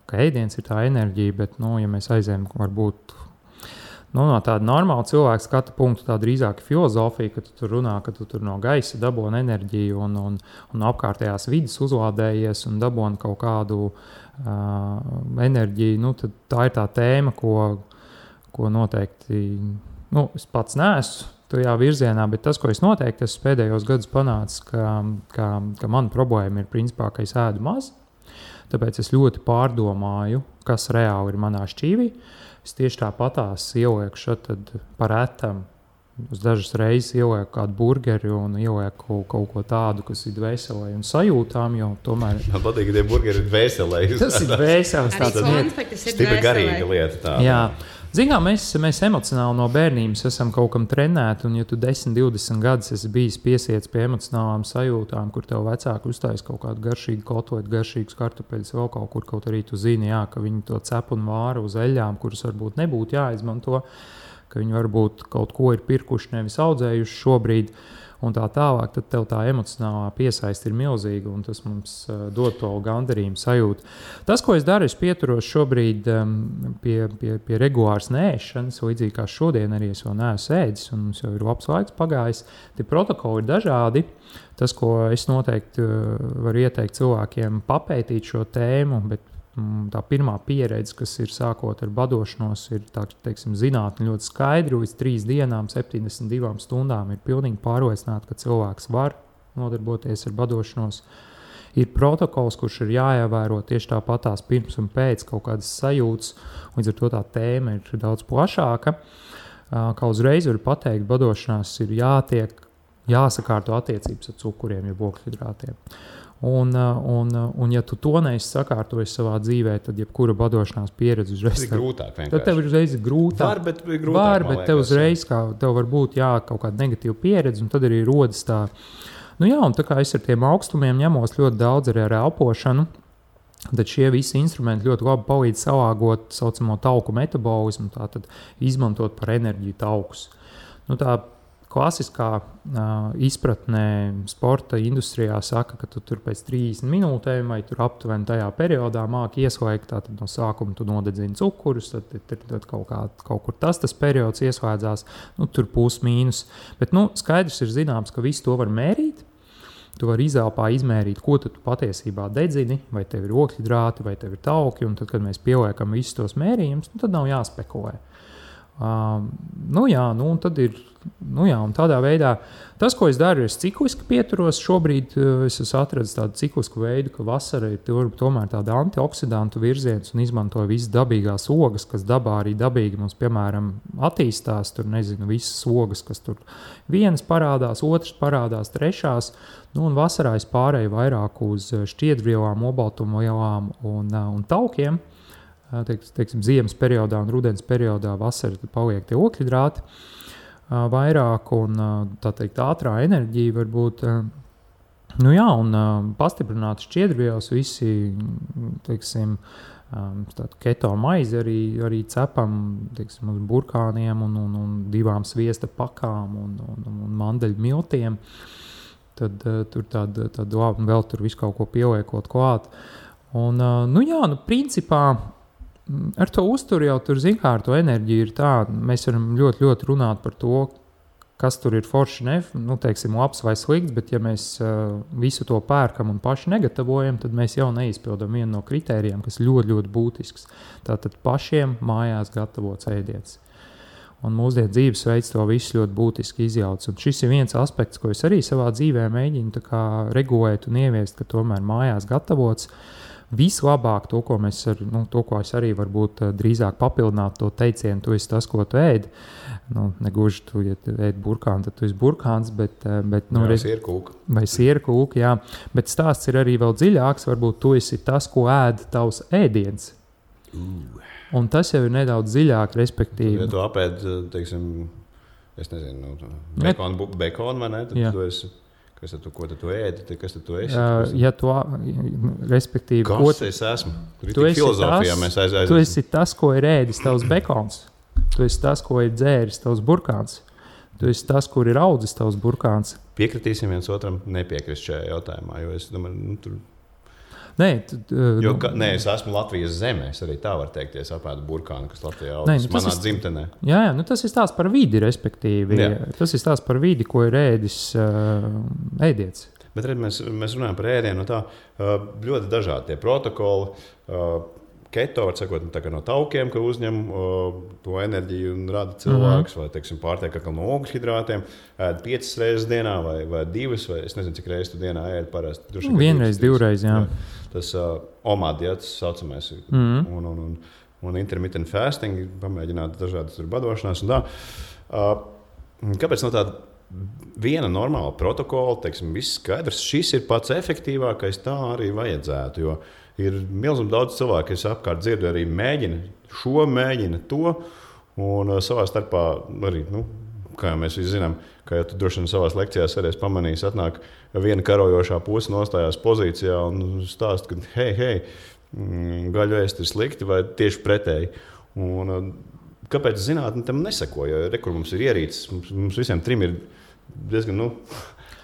ka ēdiens ir tā enerģija, bet, ja mēs aizējam varbūt... no tāda normāla cilvēka skata punktu, tā drīzāk filozofija, ka tu tur runā, ka tu tur no gaisa dabūni enerģiju un apkārtējās vidas uzlādējies un dabūni kaut kādu enerģiju. Nu, tad tā ir tā tēma, ko noteikti es pats neesmu tajā virzienā, bet tas, ko es noteikti esmu pēdējos gadus panācis, ka mana problēma ir principā, ka es ēdu maz, tāpēc es ļoti pārdomāju, kas reāli ir manā šķīvī. Es tieši tāpatās ielieku šeit par etam. Uz dažas reizes ielieku kādu burgeri un ielieku kaut ko tādu, kas ir dvēselē un sajūtām, jo tomēr... Man patīk, ka tie burgeri ir dvēselē. Tas ir dvēseles tāds stipri garīga lieta. Tā. Jā. Zinām, mēs emocionāli no bērnības esam kaut kam trenēti, un ja tu 10-20 gadus esi bijis piesiets pie emocionālām sajūtām, kur tev vecāki uztais kaut kādu garšīgu kotletu, garšīgus kartupeļus, vēl kaut arī tu zini, ka viņi to cep un vāra uz eļļām, kuras varbūt nebūtu jāizmanto, ka viņi varbūt kaut ko ir pirkuši, nevis audzējuši šobrīd, un tā tālāk, tad tev tā emocionālā piesaiste ir milzīga, un tas mums dod to gandarījumu sajūtu. Tas, ko es daru, es pieturos šobrīd pie regulāras neēšanas, līdzīgi kā šodien arī es vēl neesmu ēdis, un mums jau ir labs laiks pagājis. Tie protokoli ir dažādi. Tas, ko es noteikti varu ieteikt cilvēkiem papētīt šo tēmu, bet tā pirmā pieredze, kas ir sākot ar badošanos, ir zinātne ļoti skaidri. Līdz 3 dienām, 72 stundām ir pilnīgi pārliecināta, ka cilvēks var nodarboties ar badošanos. Ir protokols, kurš ir jāievēro tieši tāpatās pirms un pēc kaut kādas sajūtas. Līdz ar to tā tēma ir daudz plašāka. Kā uzreiz var pateikt, badošanās ir jāsakārto attiecības ar cukuriem, ja ogļhidrātiem. Un ja tu to neesi sakārtojis savā dzīvē, tad jebkura badošanās pieredze uzreiz ir grūtāk. Tad tev ir uzreiz grūtāk. Bet tev uzreiz tev var būt kaut kāda negatīva pieredze, un tad arī rodas tā. Un tā kā es ar tiem augstumiem ņemos ļoti daudz arī ar elpošanu, tad šie visi instrumenti ļoti labi palīdz salāgot saucamo tauku metabolismu, tātad izmantot par enerģiju taukus. Tā klasiskā izpratnē sporta industrijā saka, ka tu tur pēc 30 minūtēm vai tur aptuveni tajā periodā māki ieslēgt, tātad no sākuma tu nodedzini cukurus, tad kaut kur tas periods ieslēdzās, tur plus mīnus. Bet skaidrs ir zināms, ka visu to var mērīt. Tu vari izelpā izmērīt, ko tu patiesībā dedzini, vai tev ir ogļhidrāti, vai tev ir tauki, un tad, kad mēs pieliekam visus tos mērījumus, tad nav jāspekulē. Un tad ir, un tādā veidā tas, ko es daru, ir cikliski pieturos. Šobrīd es esmu atradis tādu ciklisku veidu, ka vasara ir tomēr tāda antioksidantu virziens un izmantoju visas dabīgās ogas, kas dabā arī dabīgi mums, piemēram, attīstās. Tur visas ogas, kas tur vienas parādās, otras parādās, trešās. Un vasarā es pārēju vairāk uz šķiedrvielām, obaltumvielām un taukiem. Teiksim, ziemas periodā un rudens periodā vasarā paliek tie ogļhidrāti vairāk un tā teikt ātrā enerģija var būt un pastiprināt šķiedrvielas visi, teiksim, keto maizi arī cepam, teiksim, uz burkāniem un 2 sviesta pakām un mandeļu miltiem. Tad tur tāda labi vēl tur visu kaut ko pieliekot klāt. Un principā ar to uzturu jau tur ar to enerģiju ir tā, mēs varam ļoti, ļoti runāt par to, kas tur ir forši, teiksim, labs vai slikts, bet ja mēs visu to pērkam un paši negatavojam, tad mēs jau neizpildam vienu no kritērijiem, kas ļoti, ļoti būtisks. Tātad pašiem mājās gatavots ēdiens. Un mūsdienu dzīvesveids to visu ļoti būtiski izjauc. Un šis ir viens aspekts, ko es arī savā dzīvē mēģinu regulēt un ieviest, ka tomēr mājās gatavots. vislabāk to, ko es arī varbūt drīzāk papildinātu to teicienu, tu esi tas, ko tu ēdi. Negluži tu, ja tu ēdi burkānu, tad tu esi burkāns, bet sierkūka. Vai sierkūka, jā. Bet stāsts ir arī vēl dziļāks, varbūt tu esi tas, ko ēd tavs ēdiens. Un tas jau ir nedaudz dziļāk, respektīvi. Ja tu apēd, teiksim, es nezinu, bekonu vai ne, tad tu esi, ko tad tu ēdi, kas tad tu esi? Ja tu, respektīvi... Kas es esmu? Tu esi tas, ko ir ēdis tavs bekons. Tu esi tas, ko ir dzēris tavs burkāns. Tu esi tas, kur ir audzis tavs burkāns. Piekritīsim viens otram nepiekrist šajā jautājumā, jo es domāju, tur... Nē, es esmu Latvijas zemē. Es arī tā varu teikt, ja es apēdu burkānu, kas Latvijā audzis manā dzimtenē. Jā, tas ir stāsts par vidi, respektīvi. Jā. Tas ir stāsts par vidi, ko ir ēdis ēdiens. Bet mēs runājam par ēdienu no tā ļoti dažādi tie protokoli. Keto, var sakot, no taukiem, ka uzņem to enerģiju un rada cilvēks, vai, teiksim, pārtiek no ogļhidrātiem, ēd 5 reizes dienā vai 2, vai es nezinu, cik reizes tu dienā ēd parasti. Vienreiz, 2 reizes, jā. Tas OMAD, tas saucamais, un intermittent fasting, pamēģināt dažādas badošanās un tā. Kāpēc no tāda viena normāla protokola, teiksim, viss skaidrs, šis ir pats efektīvākais, tā arī vajadzētu, jo ir milzīgi daudz cilvēku, kas apkārt dzirdu arī mēģina to, un savā starpā arī, kā mēs visi zinām, kā jau tu droši vien savās lekcijās arī pamanījis, atnāk viena karojošā puse nostājās pozīcijā un stāst, ka hei, gaļu ēst ir slikti vai tieši pretēji. Un kāpēc zinātne tam neseko, jo rekur mums ir ierīces, mums visiem trim ir diezgan,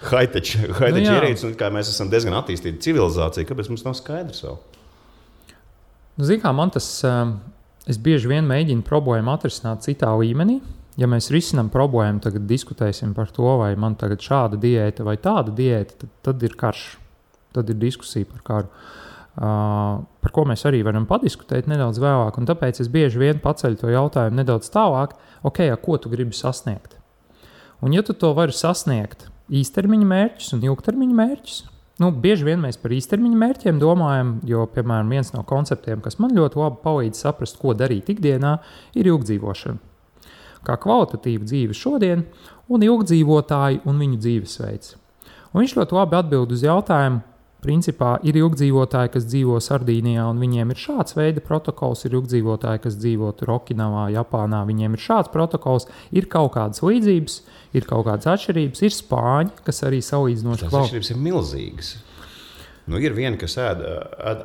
high-tech ierīces, un kā mēs esam diezgan attīstīta civilizācija, kāpēc mums nav skaidrs vēl? Zini, kā man tas, es bieži vien mēģinu problēmu atrisināt citā līmenī. Ja mēs risinām problēmu, tagad diskutēsim par to, vai man tagad šāda diēta vai tāda diēta, tad ir karš, tad ir diskusija par karu. Par ko mēs arī varam padiskutēt nedaudz vēlāk, un tāpēc es bieži vien paceļu to jautājumu nedaudz tālāk, ko tu gribi sasniegt? Un ja tu to vari sasniegt īstermiņa mērķus un ilgtermiņa mērķus, bieži vien mēs par īstermiņa mērķiem domājam, jo, piemēram, viens no konceptiem, kas man ļoti labi palīdz saprast, ko darīt ikdienā, ir ilgdzīvošana. Kā kvalitatīva dzīve šodien un ilgdzīvotāji un viņu dzīvesveids. Un viņš ļoti labi atbild uz jautājumu, principā ir ilgdzīvotāji, kas dzīvo Sardīnijā, un viņiem ir šāds veida protokols, ir ilgdzīvotāji, kas dzīvo Okinavā, Japānā, viņiem ir šāds protokols, ir kaut kādas līdzības, ir kaut kādas atšķirības, ir spāņi, kas arī salīdzinoši tās atšķirības ir milzīgas. Ir viena, kas ēd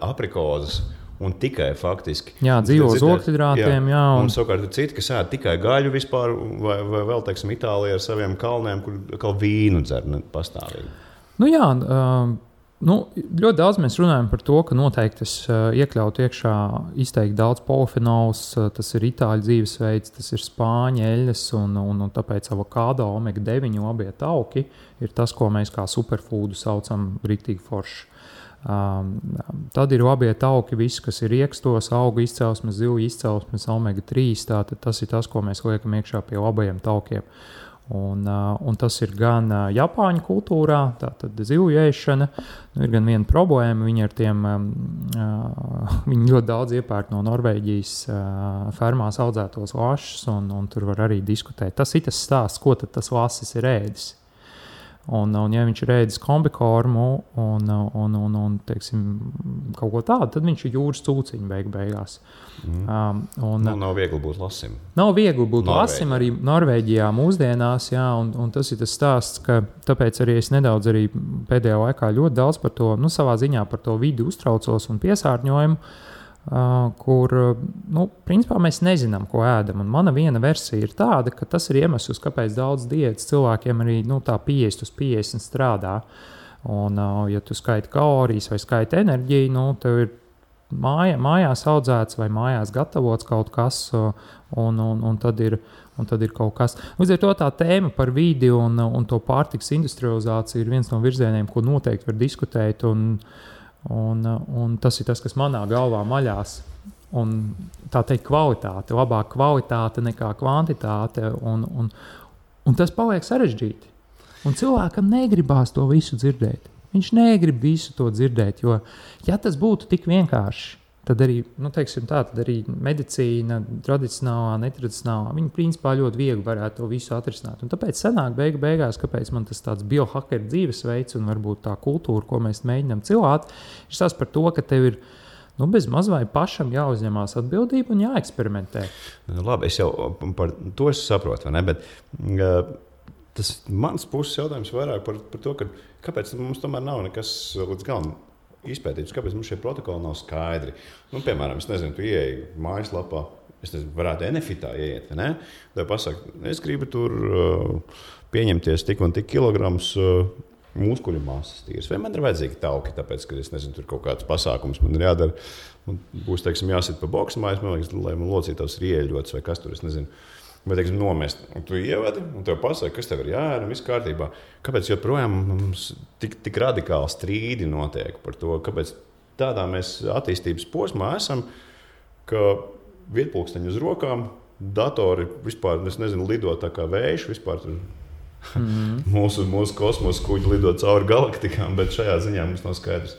aprikozes un tikai faktiski. Jā, dzīvo uz ogļhidrātiem, jā. Un savukārt ir citi, kas ēd tikai gaļu vispār, vai vēl, teiksim, Itālijā ar saviem kalniem, kur vīnu dzer pastāvīgi. Ļoti daudz mēs runājam par to, ka noteikti es iekļautu iekšā izteikti daudz polifenols, tas ir itāļu dzīvesveids, tas ir spāņu eļļas un tāpēc avokado, omega-9 labie tauki ir tas, ko mēs kā superfoodu saucam riktīgi forši. Tad ir labie tauki, viss, kas ir riekstos, augu izcelsmes, zivju izcelsmes, omega-3, tātad tas ir tas, ko mēs liekam iekšā pie labajiem taukiem. Un tas ir gan Japāņu kultūrā, tātad zivju ēšana, ir gan viena problēma, viņi ļoti daudz iepērk no Norvēģijas fermās audzētos lašus, un tur var arī diskutēt. Tas ir tas stāsts, ko tad tas lasis ir ēdis. Un ja viņš ir ēdis kombikormu un teiksim, kaut ko tādu, tad viņš ir jūras cūciņu beigās. Nav viegli būt lasim. Nav viegli būt lasim arī Norvēģijā mūsdienās, jā, un tas ir tas stāsts, ka tāpēc arī es nedaudz arī pēdējā laikā ļoti daudz par to, savā ziņā par to vidi uztraucos un piesārņojumu, kur, principā mēs nezinām, ko ēdam. Un mana viena versija ir tāda, ka tas ir iemesls, kāpēc daudz diētas cilvēkiem arī tā 50 uz 50 strādā. Un, ja tu skaiti kalorijas vai skaiti enerģiju, tev ir mājās audzēts vai mājās gatavots kaut kas, un tad ir kaut kas. Līdz ar to tā tēma par vidi un to pārtikas industrializāciju ir viens no virzieniem, ko noteikti var diskutēt, un tas ir tas, kas manā galvā maļās. Un tā teikt kvalitāte, labāka kvalitāte nekā kvantitāte, un tas paliek sarežģīti. Un cilvēkam negribās to visu dzirdēt. Viņš negrib visu to dzirdēt, jo, ja tas būtu tik vienkārši, tad arī, tad arī medicīna, tradicionālā, netradicionālā, viņi principā ļoti viegli varētu to visu atrisināt. Un tāpēc sanāk beigās, kāpēc man tas tāds biohakeru dzīvesveids un varbūt tā kultūra, ko mēs mēģinām cilāt, ir tas par to, ka tev ir bez maz vai pašam jāuzņemās atbildība un jāeksperimentē. Labi, es jau par to saprotu, vai ne? Bet tas mans puses jautājums vairāk par to, kāpēc mums tomēr nav nekas līdz galam izpētīts, kāpēc mums šie protokoli nav skaidri. Piemēram, es nezinu, tu ieeji mājaslapā, varētu Enefitā ieiet, vai ne? Tev pasaka, es gribu tur pieņemties tik un tik kilograms muskuļu masas tīras. Vai man ir vajadzīgi tauki, tāpēc, ka es nezinu, tur kaut kāds pasākums man ir jādara. Un būs, teiksim, jāsit pa boksmājas, man liekas, lai man locītos rieļots vai kas tur, es nezinu. Vai, teiksim, nomest. Un tu ievedi, un tev pasaka, kas tev ir jāēd, viss kārtībā. Kāpēc joprojām mums tik radikāli strīdi notiek par to, kāpēc tādā mēs attīstības posmā esam, ka vietpulksteņi uz rokām, datori vispār, es nezinu, lido tā kā vējš, vispār tur mūsu kosmosa kuģi lido cauri galaktikām, bet šajā ziņā mums nav skaidrs.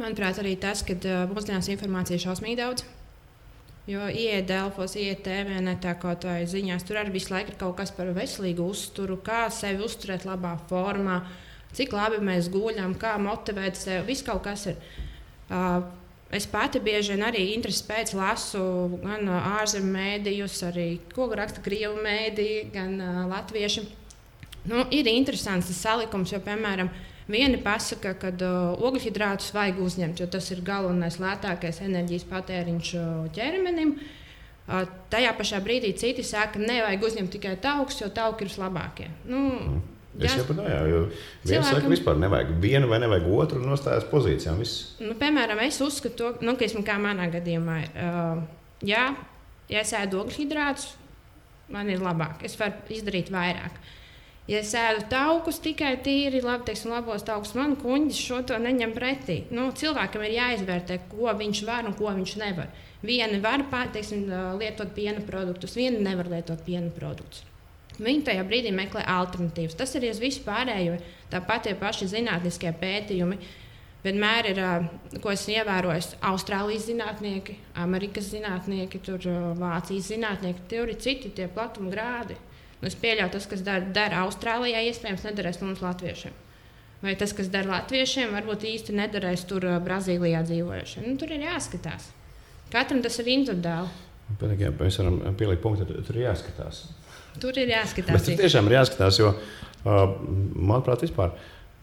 Manuprāt, arī tas, ka mūsdienās informācija ir šausmīgi daudz. Jo ieiet Delfos, ieiet TVNetā kaut vai ziņās, tur arī visu laiku ir kaut kas par veselīgu uzturu, kā sevi uzturēt labā formā, cik labi mēs guļam, kā motivēt sevi, viss kaut kas ir. Es pati bieži vien arī interesi pēc lasu gan ārzemju mēdījus, arī ko raksta krievu mēdīji, gan latvieši. Ir interesants tas salikums, jo, piemēram, vieni pasaka, ka ogļhidrātus vajag uzņemt, jo tas ir galvenais lētākais enerģijas patēriņš ķermenim. Tajā pašā brīdī citi saka, ka nevajag uzņemt tikai taukus, jo tauki ir labākie. Es saprotu, jo viens saka, vispār nevajag vienu vai nevajag otru un nostājās pozīcijām. Piemēram, es uzskatu, ka manā gadījumā ir, ja es ēdu ogļhidrātus, man ir labāk, es varu izdarīt vairāk. Ja es ēdu taukus tikai tīri, labos taukus, man kuņģis šo to neņem pretī. Cilvēkam ir jāizvērtē, ko viņš var un ko viņš nevar. Vieni var lietot piena produktus, vieni nevar lietot piena produktus. Viņi tajā brīdī meklē alternatīvas. Tas arī uz visu pārējo. Tāpat tie paši zinātniskie pētījumi. Vienmēr ir, ko esmu ievērojis, Austrālijas zinātnieki, Amerikas zinātnieki, Vācijas zinātnieki. Tur ir citi tie platuma grādi. Es pieļauju, tas, kas dara Austrālijā, iespējams, nedarēs mums latviešiem. Vai tas, kas dara latviešiem, varbūt īsti nedarēs tur Brazīlijā dzīvojušiem. Tur ir jāskatās. Katram tas ir individuāli. Mēs varam pielikt punktu, tur ir jāskatās. Tur ir jāskatās. Bet tur tiešām ir jāskatās, jo, manuprāt, vispār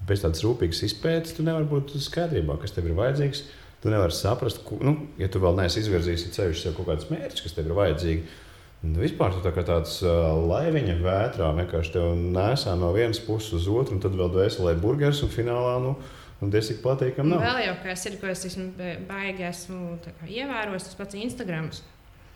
bez tādas rūpīgas izpētes tu nevari būt skaidrībā, kas tev ir vajadzīgs. Tu nevari saprast, ja tu vēl neesi izvirzījis sev kaut kādus mērķus, kas tev ir vajadzīgi. Vispār tu tā kā tāds laiviņa vētrā vienkārši tev nesā no vienas puses uz otru, un tad vēl dvēselē burgers, un finālā, diezgan patīkam nav. Vēl jau kas ir, ko es baigi esmu ievērojis, tas pats Instagrams.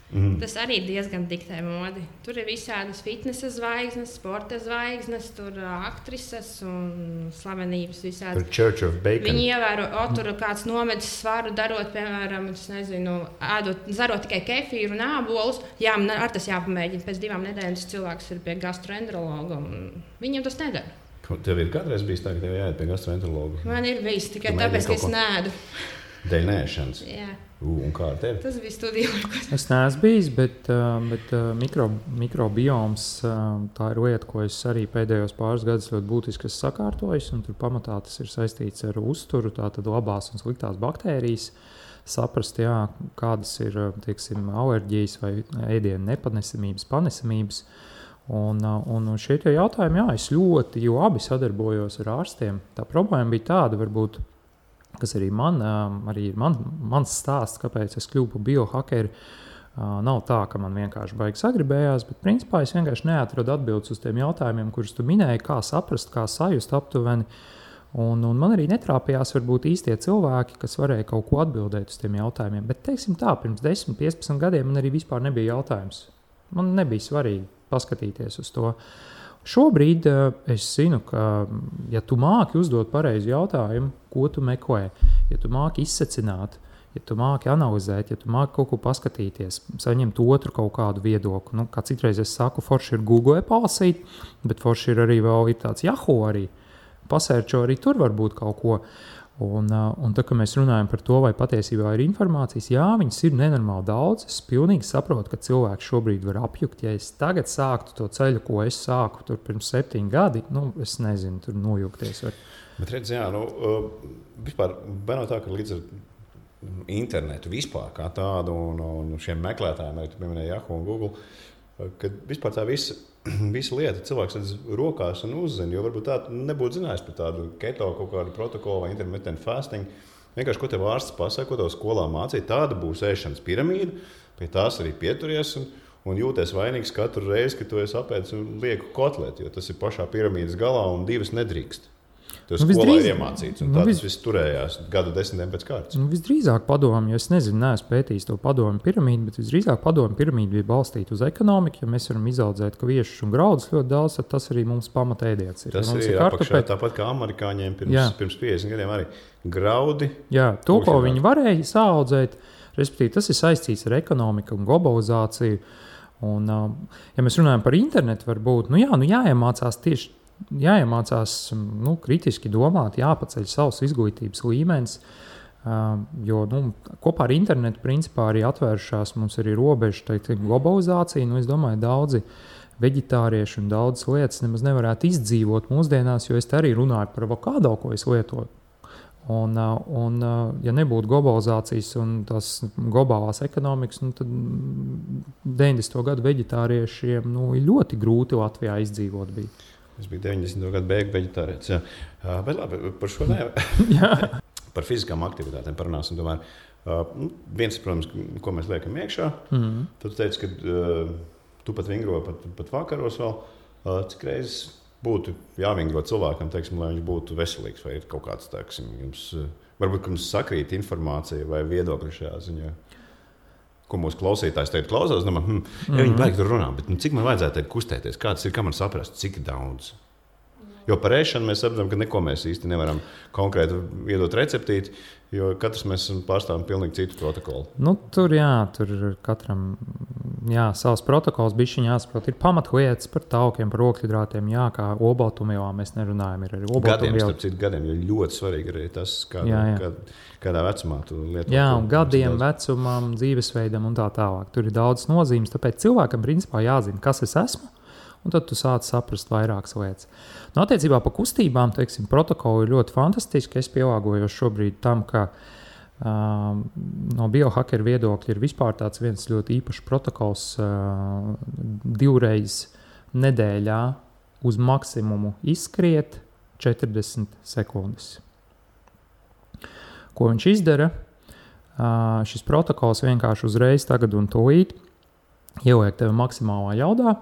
Tas arī diezgan diktē modi. Tur ir visādas fitnesa zvaigznes, sporta zvaigznes, tur aktrises un slavenības visādas. Tur Church of Bacon. Viņi ievēro, tur kāds nomedis svaru darot, piemēram, zarot tikai kefīru un ābolus. Jā, man ar tas jāpamēģina. Pēc 2 nedēļām cilvēks ir pie gastroenterologa un viņam tas nedara. Tev ir kādreiz bijis tā, ka tev jāiet pie gastroenterologa? Man ir bijis tikai tāpēc, ka es nēdu. Dēļ nēšanas? Jā. Un kā ar tevi? Tas bija studijā. Es neesmu bijis, bet mikrobioms tā ir lieta, ko es arī pēdējos pāris gadus ļoti būtiski sakārtojis. Tur pamatā tas ir saistīts ar uzturu, tātad labās un sliktās baktērijas. Saprast, kādas ir alerģijas vai ēdienu nepanesamības, panesamības. Un šie jautājumi, es ļoti, jo abi sadarbojos ar ārstiem. Tā problēma bija tāda, varbūt, kas arī ir mans stāsts, kāpēc es kļuvu par biohakeru. Nav tā, ka man vienkārši baigi sagribējās, bet principā es vienkārši neatradu atbildes uz tiem jautājumiem, kurus tu minēji, kā saprast, kā sajust aptuveni. Un man arī netrāpījās varbūt īstie cilvēki, kas varēja kaut ko atbildēt uz tiem jautājumiem. Bet, teiksim tā, pirms 10, 15 gadiem man arī vispār nebija jautājums. Man nebija svarīgi paskatīties uz to. Šobrīd es zinu, ka, ja tu māki uzdot pareizu jautājumu, ko tu meklē, ja tu māki izsecināt, ja tu māki analizēt, ja tu māki kaut ko paskatīties, saņemt otru kaut kādu viedokli. Kā citreiz es saku, forši ir Google palasīt, bet forši ir arī vēl ir tāds Yahoo arī. pasērčo arī tur varbūt kaut ko. Un tā, kad mēs runājam par to, vai patiesībā ir informācijas, jā, viņas ir nenormāli daudz. Es pilnīgi saprotu, ka cilvēks šobrīd var apjukt. Ja es tagad sāktu to ceļu, ko es sāku tur pirms 7 gadi, es nezinu, tur nojukties. Bet redz, jā, vispār nav tā, ka līdz ar internetu vispār kā tādu un šiem meklētājiem, arī tu pieminēji Yahoo un Google, kad vispār tā visa lieta cilvēks redz rokās un uzzina, jo varbūt tā nebūtu zinājis par tādu keto kaut kādu protokolu vai intermittent fasting. Vienkārši, ko tev ārsts pasaka, ko tev skolā mācīja, tāda būs ēšanas piramīda, pie tās arī pieturies un jūties vainīgs katru reizi, kad tu esi apēdis un lieku kotleti, jo tas ir pašā piramīdas galā un 2 nedrīkst. Tas skolā ir iemācīts, un tā tas viss turējās gadu desmitiem pēc kārtas. Visdrīzāk padomu, jo es nezinu, neesmu pētījis to padomu piramīdu, bet visdrīzāk padomu piramīdu bija balstīta uz ekonomiku. Ja mēs varam izaudzēt kviešus un graudus ļoti daudz, tad tas arī mums pamatēdiens ir. Tas ir apakšā, tāpat kā amerikāņiem pirms 50 gadiem arī graudi. Jā, to, ko viņi varēja saaudzēt, respektīvi tas ir saistīts ar ekonomiku un globalizāciju. Un, ja mēs runājam par internetu, varbūt, jāiemācās tieši jāiemācās kritiski domāt, jāpaceļ savs izglītības līmenis, jo kopā ar internetu principā arī atvēršās mums arī robeža globalizācija. Es domāju, daudzi veģetārieši un daudzas lietas nemaz nevarētu izdzīvot mūsdienās, jo es te arī runāju par avokado, ko es lietoju. Un ja nebūtu globalizācijas un tās globālās ekonomikas, tad 90. gadu veģetāriešiem ir ļoti grūti Latvijā izdzīvot bija. Es biju 90. gadu beigu veģetārietis. Bet labi, par šo par fiziskām aktivitātēm parunāsim. Tomēr, viens, protams, ko mēs liekam iekšā. Tad tu teici, ka tu pat vingro pat vakaros vēl. Cik reizes būtu jāvingro cilvēkam, teiksim, lai viņš būtu veselīgs? Vai ir kaut kāds, teiksim, varbūt, ka mums sakrīt informācija vai viedokļi šajā ziņā? Ko mūsu klausītājs teikt klausās, viņi baigi tur runā, bet cik man vajadzētu kustēties, kāds ir, kā man saprast, cik daudz. Jo par ēšanu mēs saprotam, ka neko mēs īsti nevaram konkrēti iedot receptīti, jo katrs mēs pārstāvam pilnīgi citu protokolu. Tur katram savs protokols bišķiņ jāsaprot. Ir pamatlietas par taukiem, par ogļhidrātiem, kā olbaltumvielām mēs nerunājam. Ir arī olbaltumvielu. Gadiem, jo ļoti svarīgi arī tas, kādā vecumā tu lieto. Jā, un gadiem, vecumam, dzīvesveidam un tā tālāk. Tur ir daudz nozīmes, tāpēc cilvēkam principā jāzina, kas es esmu. Un tad tu sāc saprast vairākas lietas. Attiecībā par kustībām, protokoli ir ļoti fantastiski. Es pielāgojos šobrīd tam, ka no biohakeru viedokļa ir vispār tāds viens ļoti īpašs protokols 2 reizes nedēļā uz maksimumu izskriet 40 sekundes. Ko viņš izdara? Šis protokols vienkārši uzreiz tagad un tūlīt ieliek tevi maksimālā jaudā.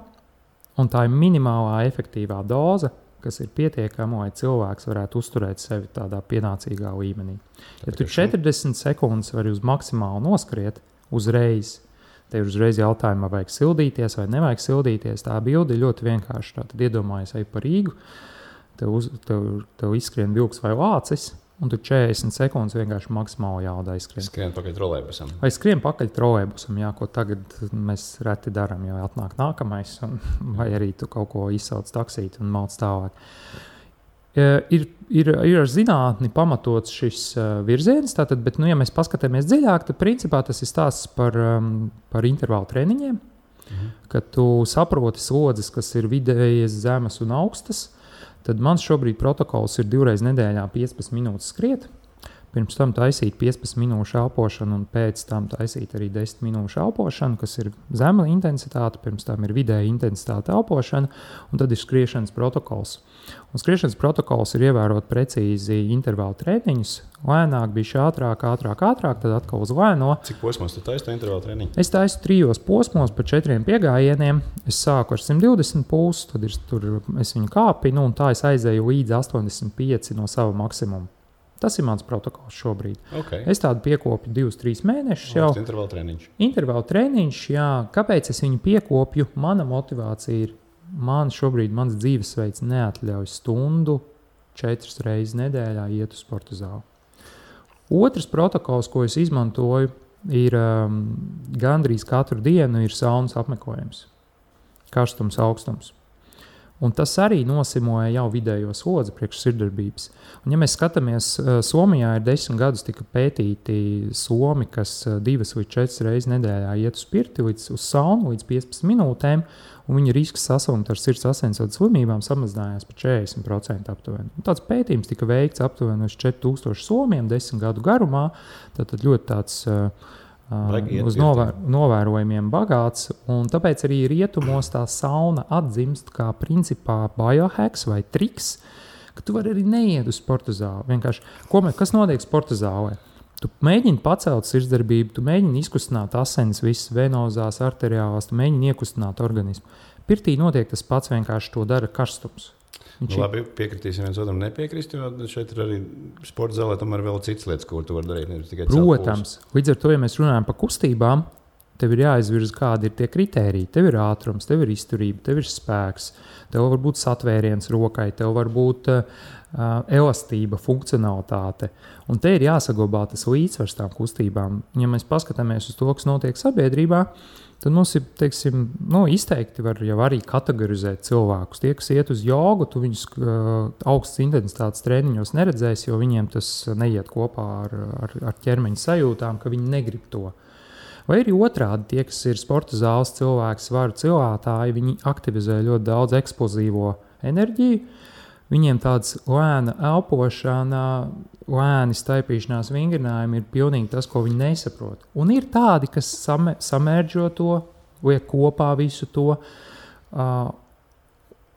Un tā ir minimālā efektīvā doze, kas ir pietiekama, lai cilvēks varētu uzturēt sevi tādā pienācīgā līmenī. Ja tu 40 sekundes vari uz maksimālu noskriet uzreiz, tev ir uzreiz jautājumi, vai vajag sildīties vai nevajag sildīties. Tā bilde ir ļoti vienkārša. Tad iedomājies, ej pa Rīgu, tev izskrien vilks vai lācis, un tu 40 sekundes vienkārši maksimāli jaudā izskrien. Skrien pakaļ trolejbusam. Vai skrien pakaļ trolejbusam, ko tagad mēs reti darām, jo atnāk nākamais, vai arī tu kaut ko izsauc taksīt un malc tālāk. Ir ar zinātni pamatots šis virziens, tātad, bet, ja mēs paskatāmies dziļāk, tad principā tas ir stāsts par intervālu treniņiem, kad tu saproti slodzes, kas ir vidējas, zemes un augstas. Tad mans šobrīd protokols ir 2 reizes nedēļā 15 minūtes skriet. Pirms tam taisīt 15 minūšu elpošanu un pēc tam taisīt arī 10 minūšu elpošanu, kas ir zema intensitāte, pirms tam ir vidēja intensitāte elpošana, un tad ir skriešanas protokols. Un skriešanas protokols ir ievērot precīzi intervālu treniņus, lēnāk, bišķi ātrāk, tad atkal uz lēno. Cik posmos tu taisi to intervālu treniņu? Es taisu 3 posmos pa 4 piegājieniem. Es sāku ar 120 pulsu, tad es viņu kāpinu, un tā es aizēju līdz 85 no sava maksimuma. Tas ir mans protokols šobrīd. Okay. Es tādu piekopju 2-3 mēnešus jau. Intervālu treniņš. Intervālu treniņš, jā. Kāpēc es viņu piekopju? Mana motivācija ir, mans dzīvesveids neatļauj stundu 4 reizes nedēļā iet uz sporta zāli. Otrs protokols, ko es izmantoju, ir gandrīz katru dienu ir saunas apmeklējums. Karstums, augstums. Un tas arī nosimoja jau vidējo slodzi priekš sirdsdarbības. Un, ja mēs skatāmies, Somijā ir 10 gadus tika pētīti somi, kas 2 līdz 4 reizes nedēļā iet uz pirti, uz saunu līdz 15 minūtēm, un viņa risks saslimt ar sirds asinsvadu slimībām samazinājās par 40% aptuveni. Un tāds pētījums tika veikts aptuveni uz 4000 somiem 10 gadu garumā. Tātad ļoti tāds uz novērojumiem bagāts, un tāpēc arī rietumos tā sauna atzimst kā principā biohacks vai triks, ka tu vari arī neiet uz sporta zāli. Vienkārši, kas notiek sporta zālē? Tu mēģini pacelt sirdsdarbību, tu mēģini izkustināt asinis, visas venozās, arteriālās, tu mēģini iekustināt organismu. Pirtī notiek tas pats, vienkārši to dara karstums. Labi, piekritīsim viens otram nepiekrist, jo šeit ir arī sporta zālē tomēr vēl citas lietas, ko tu vari darīt, nevis tikai Protams, līdz ar to, ja mēs runājam par kustībām, tev ir jāizvirza, kādi ir tie kritēriji. Tev ir ātrums, tev ir izturība, tev ir spēks, tev var būt satvēriens rokai, tev var būt elastība, funkcionalitāte. Un te ir jāsaglabā tas līdzsvars tām kustībām. Ja mēs paskatāmies uz to, kas notiek sabiedrībā, tad mums ir, teiksim, izteikti var jau arī kategorizēt cilvēkus. Tie, kas iet uz jogu, tu viņus augstas intensitātes treniņos neredzēsi, jo viņiem tas neiet kopā ar ķermeņa sajūtām, ka viņi negrib to. Vai arī otrādi, tie, kas ir sporta zāles cilvēki, svaru cilātāji, viņi aktivizē ļoti daudz eksplozīvo enerģiju. Viņiem tāds lēna elpošana, lēni staipīšanās vingrinājumi ir pilnīgi tas, ko viņi nesaprot. Un ir tādi, kas samērdžo to, liek kopā visu to.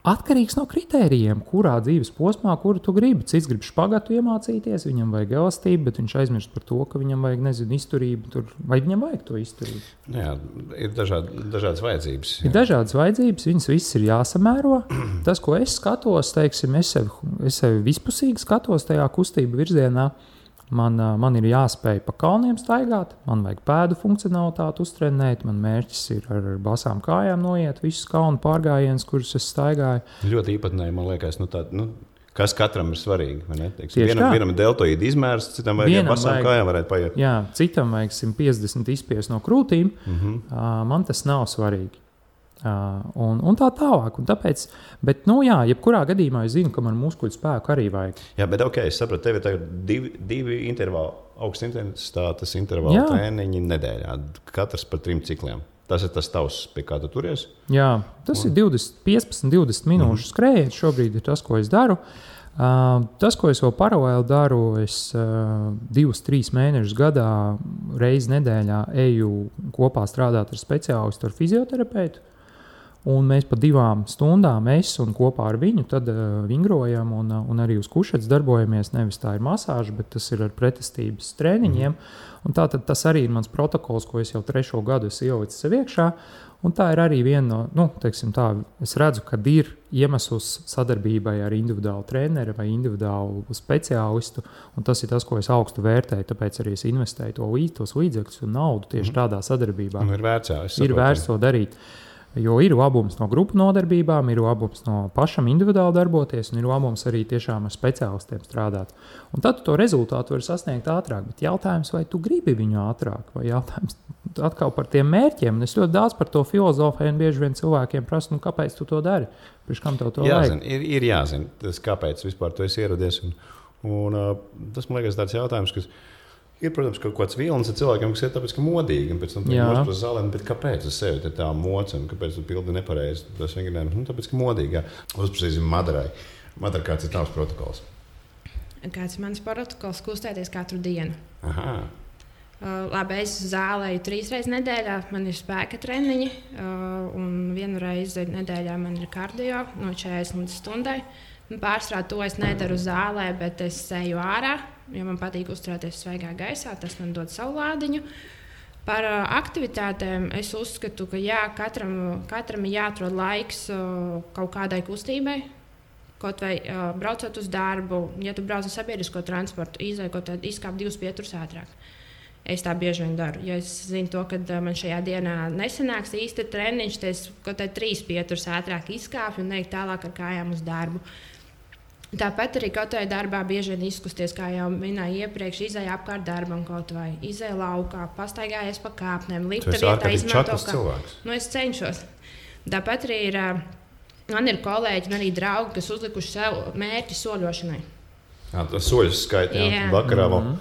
Atkarīgs no kritērijiem, kurā dzīves posmā, kuru tu gribi. Cits grib špagatu iemācīties, viņam vajag elastību, bet viņš aizmirst par to, ka viņam vajag, izturību. Vai viņam vajag to izturību? Jā, ir dažādas vajadzības. Ir dažādas vajadzības, viņas visas ir jāsamēro. Tas, ko es skatos, teiksim, es sevi vispusīgi skatos tajā kustību virzienā. Man ir jāspēj pa kalniem staigāt, man vajag pēdu funkcionalitāti uztrenēt, man mērķis ir ar basām kājām noiet visus kalnu pārgājienus, kurus es staigāju. Ļoti īpatnēji, man liekas, kas katram ir svarīgi. Vienam ir deltoīda izmērs, citam vajag ar basām kājām varētu paiet. Jā, citam vajag 150 izspiest no krūtīm, man tas nav svarīgi. Un tā tālāk. Un tāpēc, bet, jebkurā gadījumā es zinu, ka man muskuļu spēku arī vajag. Jā, bet es sapratu, tev ir tagad divi intervāli, augsts intensitātes intervāli treniņi nedēļā, katrs par 3 cikliem. Tas ir tas tavs, pie kā tu turies? Jā, tas ir 15-20 minūšu skrējiens. Šobrīd ir tas, ko es daru. Tas, ko es vēl paralēli daru, es 2-3 mēnešus gadā reizi nedēļā eju kopā strādāt ar speciālistu, ar fizioterapeitu. Un mēs pa 2 stundām un kopā ar viņu tad vingrojam un arī uz kušetes darbojamies. Nevis tā ir masāža, bet tas ir ar pretestības treniņiem. Un tātad tas arī ir mans protokols, ko es jau 3. gadu ielicis sev iekšā. Un tā ir arī viena no, es redzu, ka ir iemesls sadarbībai ar individuālu treneri vai individuālu speciālistu. Un tas ir tas, ko es augstu vērtēju. Tāpēc arī es investēju tos līdzekļus un naudu tieši tādā sadarbībā. Ir vērts to darīt. Jo ir labums no grupu nodarbībām, ir labums no pašam individuāli darboties, un ir labums arī tiešām ar speciālistiem strādāt. Un tad to rezultātu var sasniegt ātrāk. Bet jautājums, vai tu gribi viņu ātrāk, vai jautājums atkal par tiem mērķiem. Un es ļoti daudz par to filozofēju, un bieži vien cilvēkiem prasu, kāpēc tu to dari? Priekš kam tev to vajag? Ir jāzina, tas, kāpēc vispār tu esi ieradies. Un tas, man liekas, tāds jautājums, kas ir, protams, kaut kāds vilnis ar cilvēkiem, kas ir tāpēc, ka modīgi, un pēc tam mūsu par zālēm, bet kāpēc uz sevi ir tā moca, un kāpēc tu pildi nepareizi tas vingrinājums? Tāpēc, ka modīgi, jā. Uzprasīsim Madarai. Madara, kāds ir tavs protokols? Kāds ir mans protokols? Kustēties katru dienu. Aha. Labi, es zālēju 3 reizes nedēļā, man ir spēka treniņi, un 1 reizi nedēļā man ir kardio no 40 līdz stundai. Pārsvarā to es nedaru zālē, bet es eju ārā, jo man patīk uzturēties svaigā gaisā. Tas man dod savu lādiņu. Par aktivitātēm es uzskatu, ka katram ir jāatrod laiks kaut kādai kustībai. Kaut vai braucot uz darbu, ja tu brauc ar sabiedrisko transportu, izkāp 2 pieturus ātrāk. Es tā bieži vien daru. Ja es zinu, ka man šajā dienā nesanāks īsti treniņš, tad es kaut kā 3 pieturus ātrāk izkāpju un eju tālāk ar kājām uz darbu. Tāpat arī kaut vai darbā bieži vien izkusties, kā jau minēju iepriekš, izēja apkārt darbam kaut vai izēja laukā, pastaigājies pa kāpnēm, lifta vietā izmanto cilvēks. Es cenšos. Tāpat arī ir Man ir kolēģi un arī draugi, kas uzlikuši sev mērķi soļošanai. Tas soļus skaitā vakarā vēl.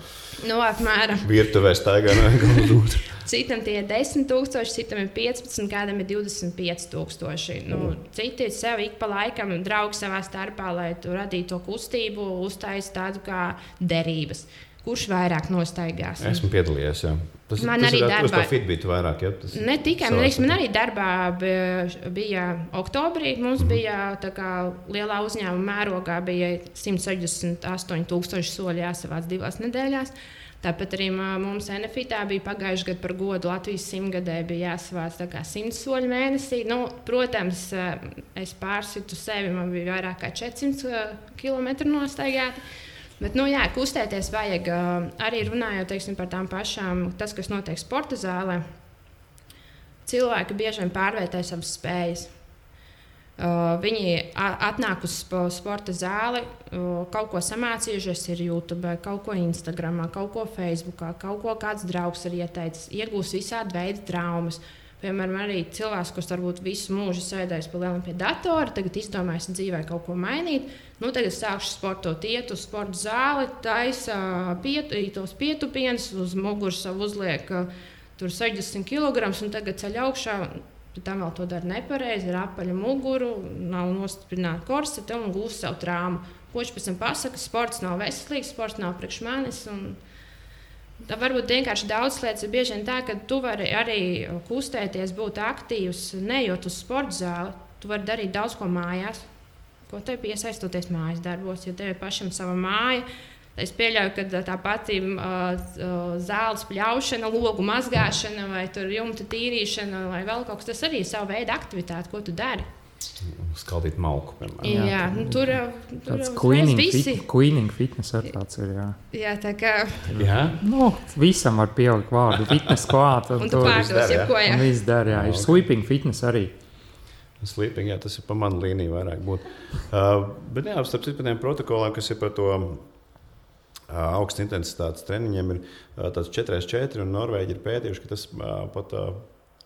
Apmēram. Virtuvē staigā negalvot. Citam tie ir 10,000, citam ir 15, kādam ir 25,000. Citi sev ik pa laikam draugi savā starpā, lai tu radītu to kustību, uztaisītu tādu kā derības. Kurš vairāk nostaigās? Esmu piedalījies, jā. Tas arī darbā. Tas Fitbit vairāk, ja? Ne tikai, man arī darbā bija oktobrī, mums bija tā kā lielā uzņēmuma mērogā bija 168,000 soļi jāsavāc 2 nedēļās. Tāpat arī mums NFITā bija pagājuši gadu par godu Latvijas 100-gadē bija jāsavāc 100 soļu mēnesī. Protams, es pārsitu sevi, man bija vairāk kā 400 km nostaigāti. Bet, kustēties vajag arī runājot par tām pašām, tas, kas notiek sporta zālē. Cilvēki bieži vien pārvērtē savas spējas. Viņi atnāk uz sporta zāli, kaut ko samācījušies ir YouTube, kaut ko Instagramā, kaut ko Facebookā, kaut ko kāds draugs ir ieteicis, iegūst visādi veidi traumas. Piemēram, arī cilvēks, kurš varbūt visu mūžu sēdējis pie datora, tagad izdomājis dzīvē kaut ko mainīt. Tagad sākšu sportot, iet uz sporta zāli, taisa tos pietupienus, uz muguras uzliek tur 60 kg un tagad ceļ augšā. Tam vēl to dara nepareizi, ir apaļa muguru, nav nostiprināta korsete un gūst savu traumu. Ko viņš pēc tam pasaka, sports nav veselīgs, sports nav priekš manis. Tā varbūt vienkārši daudz lietas ir bieži vien tā, ka tu vari arī kustēties, būt aktīvs, nejot uz sporta zāli. Tu vari darīt daudz ko mājās, ko tev piesaistoties mājas darbos, jo tev ir pašam sava māja. Es pieļauju, ka tā pati zāles pļaušana, logu mazgāšana vai jumta tīrīšana vai vēl kaut kas, tas arī ir sava veida aktivitāte, ko tu dari. Skaldīt malku, piemēram. Jā, tur tāds cleaning fitness ar tāds ir, jā. Jā, tā kā... Jā? Visam var pielikt vārdu fitness klāt. Un tu pārdos, jebko, jā. Un viss dar, jā. Ir sweeping fitness arī. Sleeping, jā, tas ir pa manu līniju vairāk būt. Bet jā, starp citu par tiem protokoliem, kas ir par to augsts intensitātes treniņiem, ir tāds 4x4, un Norvēģi ir pētījuši, ka tas pat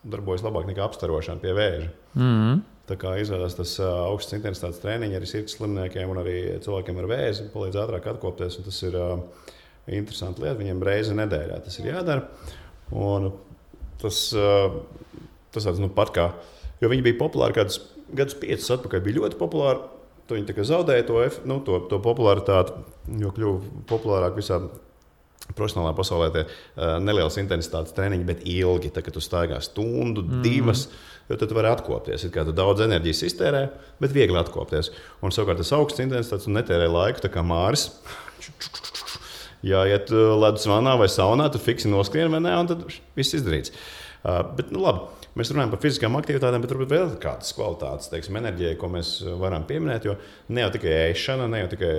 darbojas labāk nekā apstarošana pie vēža. Tā kā izvēlās tas augsts intensitātes treniņi arī sirds slimniekiem un arī cilvēkiem ar vēzi, palīdz ātrāk atkopties, un tas ir interesanti lieta, viņiem reizi nedēļā tas ir jādara. Un tas tāds, pat kā, jo viņi bija populāri kādus gadus 5 atpakaļ, bija ļoti populāri. Viņi tā kā zaudēja to popularitāti, jo kļuva populārāk visā profesionālā pasaulē tie nelielas intensitātes treniņi, bet ilgi. Tā, kad tu staigā stundu, 2, jo tad tu vari atkopties. Ir kā tu daudz enerģijas iztērē, bet viegli atkopties. Un savukārt tas augsts intensitātes un netērē laiku, tā kā Māris. Jāiet ledus vannā vai saunā, tad fiksi noskrien vai ne, un tad viss izdarīts. Bet labi. Mēs runājam par fiziskām aktivitātēm, bet varbūt vēl kādas kvalitātes, enerģijai, ko mēs varam pieminēt. Jo ne jau tikai ēšana, ne jau tikai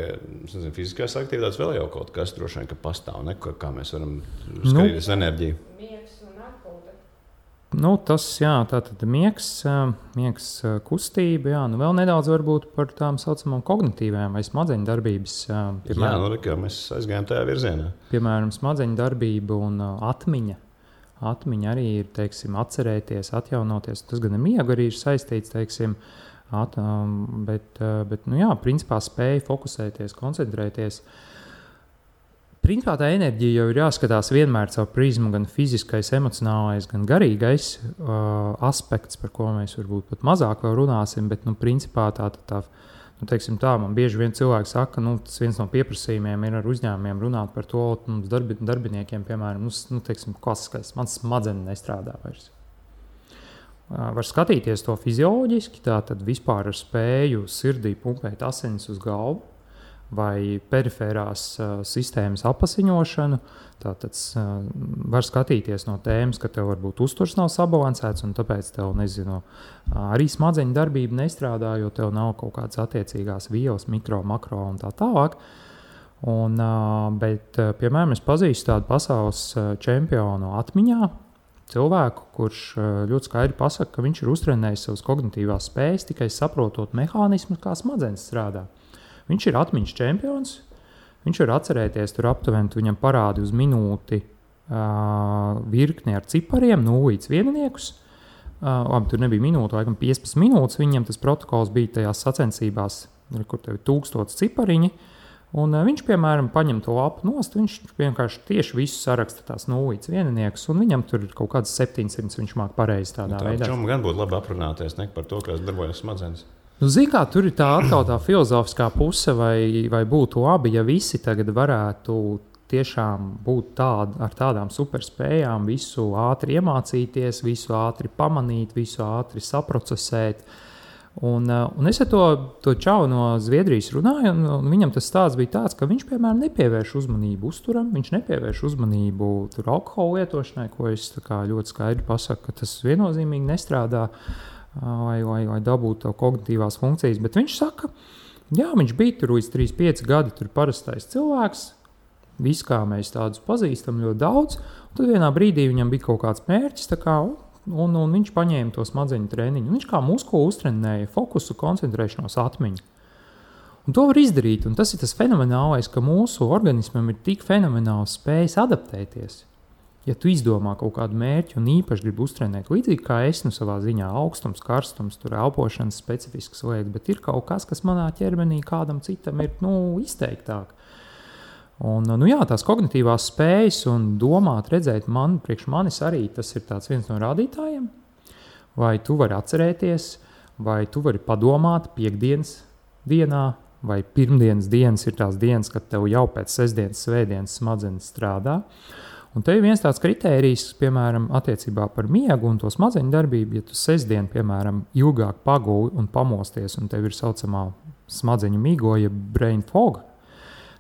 fiziskās aktivitātes, vēl jau kaut kas droši vien, ka pastāv, ne? Kā mēs varam skatīties enerģiju. Miegs un atpūta. Tas, jā, tātad miegs kustība, jā. Vēl nedaudz varbūt par tām saucamām kognitīvām vai smadzeņu darbības. Piemēram, jā, mēs aizgājām tajā virzienā. Piemēram, smadzeņu darbība un atmiņa. Atmiņa arī ir, atcerēties, atjaunoties. Tas gan ar miegu arī ir saistīts, bet principā spēja fokusēties, koncentrēties. Principā tā enerģija jau ir jāskatās vienmēr caur prizmu, gan fiziskais, emocionālais, gan garīgais aspekts, par ko mēs varbūt pat mazāk vēl runāsim, bet, principā man bieži vien cilvēki saka, tas viens no pieprasījumiem ir ar uzņēmumiem runāt par to, darbiniekiem, piemēram, klasiskais, mans smadzenes nestrādā vairs. Var skatīties to fizioloģiski, tātad vispār ar spēju sirdī pumpēt asinis uz galvu vai perifērās sistēmas apasiņošanu. Tātad var skatīties no tēmas, ka tev varbūt uzturs nav sabalansēts, un tāpēc tev, arī smadzeņu darbība nestrādā, jo tev nav kaut kādas attiecīgās vielas, mikro, makro un tā tālāk. Bet, piemēram, es pazīstu tādu pasaules čempionu atmiņā, cilvēku, kurš ļoti skaidri pasaka, ka viņš ir uztrenējis savas kognitīvās spējas, tikai saprotot mehānismu, kā smadzenes strādā. Viņš ir atmiņas čempions. Viņš var atcerēties, tur aptuveni viņam parādi uz minūti virkni ar cipariem, 0 līdz 1. Tur nebija minūte, laikam 15 minūtes. Viņam tas protokols bija tajās sacensībās, kur tev ir 1000 cipariņi. Un viņš, piemēram, paņem to lapu nost, viņš vienkārši tieši visu saraksta tās nulītes vienniekus, un viņam tur ir kaut kāds 700, viņš māk pareizi tādā veidā. Čom gan būtu labi aprunāties par to, kā darbojas smadzenes. Kā tur ir tā atkal tā filozofiskā puse, vai būtu labi, ja visi tagad varētu tiešām būt ar tādām superspējām, visu ātri iemācīties, visu ātri pamanīt, visu ātri saprocesēt. Un es ar to čau no Zviedrijas runāju, un viņam tas stāsts bija tāds, ka viņš, piemēram, nepievērš uzmanību uzturam, viņš nepievērš uzmanību alkohola lietošanai, ko es ļoti skaidri pasaku, ka tas viennozīmīgi nestrādā, lai dabūtu to kognitīvās funkcijas. Bet viņš saka, jā, viņš bija tur līdz 3-5 gadi, tur parastais cilvēks, viss kā mēs tādus pazīstam ļoti daudz, un tad vienā brīdī viņam bija kaut kāds mērķis, un viņš paņēma to smadzeņu treniņu. Viņš kā muskuli uztrenēja fokusu, koncentrēšanos, atmiņu. Un to var izdarīt, un tas ir tas fenomenālais, ka mūsu organismam ir tik fenomenāls spējas adaptēties. Ja tu izdomā kaut kādu mērķi un īpaši gribi uztrenēt, līdzīgi kā es savā ziņā, augstums, karstums, tur elpošanas specifiskas lietas, bet ir kaut kas, kas manā ķermenī kādam citam ir izteiktāk. Un, tās kognitīvās spējas un domāt, redzēt, priekš manis arī tas ir viens no rādītājiem. Vai tu vari atcerēties, vai tu vari padomāt piekdienas dienā, vai pirmdienas dienas ir tās dienas, kad tev jau pēc sestdienas, svētdienas smadzenes strādā. Un te ir viens tāds kritērijs, piemēram, attiecībā par miegu un to smadzeņu darbību. Ja tu sestdien, piemēram, ilgāk paguli un pamosties, un tev ir saucamā smadzeņu migoja brain fog,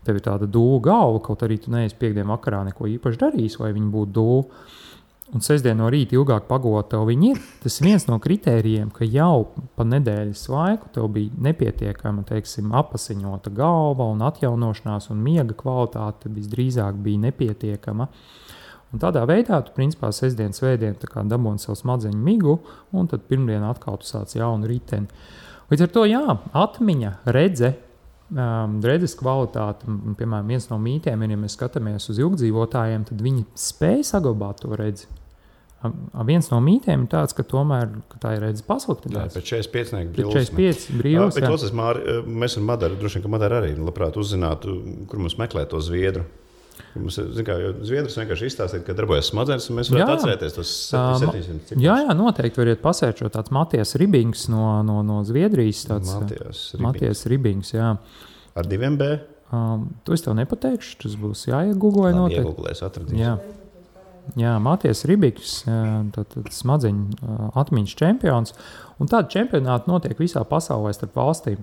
tev ir tāda dūla galva, kaut arī tu neesi piekdien vakarā neko īpaši darījis, lai viņi būtu dūla. Un sestdien no rīta ilgāk pagot tev viņi ir. Tas ir viens no kritērijiem, ka jau pa nedēļas laiku tev bija nepietiekama, apasiņota galva un atjaunošanās un miega kvalitāte visdrīzāk bija nepietiekama. Un tādā veidā tu, principā, sestdien, svētdien dabūni savu smadzeņu migu, un tad pirmdien atkal tu sāc jaunu riteni. Līdz ar to, atmiņa, redzes kvalitāte, piemēram, viens no mītiem ir, ja mēs skatāmies uz ilgdzīvotājiem, tad viņi spēj saglabāt to redzi. Viens no mītiem ir tāds, ka tomēr tā ir redzes pasliktinās. Pēc 45 brīvs. 45 brīvs, jā. Bet mēs ar Madaru, droši vien, ka Madara arī labprāt uzzinātu, kur mums meklēt to zviedru. Mums, zviedrs vienkārši izstāstīt, ka darbojas smadzenes, un mēs varētu atcerēties tos 700 ciprus. Jā, noteikti variet pasērčot tāds Matijas Ribings no Zviedrijas. Matijas Ribings, jā. Ar 2 B? To es tev nepateikšu, tas būs jāiegooglē noteikti. Iegooglēs, atradīs. Jā, Matijas Ribings, smadzeņu atmiņas čempions, un tādi čempionāti notiek visā pasaulē starp valstīm.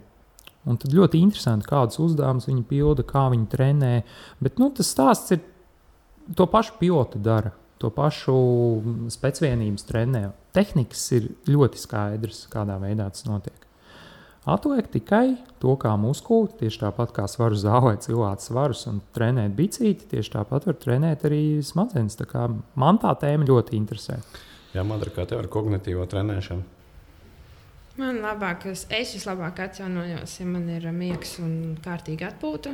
Un tad ļoti interesanti, kādus uzdevumus viņi pilda, kā viņi trenē. Bet tas stāsts ir, to pašu piloti dara, to pašu specvienības trenē. Tehnikas ir ļoti skaidrs, kādā veidā tas notiek. Atliek tikai to, kā muskuli, tieši tāpat kā svaru zālē cilāt svarus un trenēt bicīti, tieši tāpat var trenēt arī smadzenes. Tā kā man tā tēma ļoti interesē. Jā, Madara, kā tev ar kognitīvo trenēšanu? Man es vislabāk atjaunojos, ja man ir miegs un kārtīga atpūta.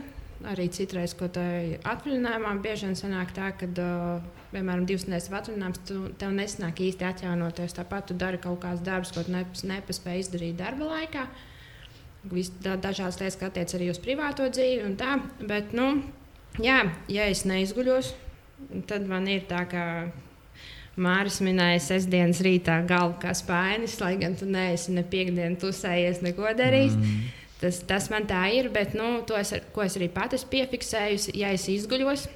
Arī citreiz, ko tā atvaļinājumā bieži vien sanāk tā, ka, piemēram, 2 nedēļas atvaļinājums, tev nesanāk īsti atjaunoties. Tāpat tu dari kaut kādas darbus, ko tu nepaspēji izdarīt darba laikā. Dažādas lietas, kas attiec arī uz privāto dzīvi un tā. Bet, ja es neizguļos, tad man ir tā, ka Māris minēja sestdienas rītā galvu kā spainis, lai gan tu neesi ne piekdienu tusējies, neko darījis. Tas man tā ir, bet ko es arī pati esmu piefiksējusi, ja es izguļos,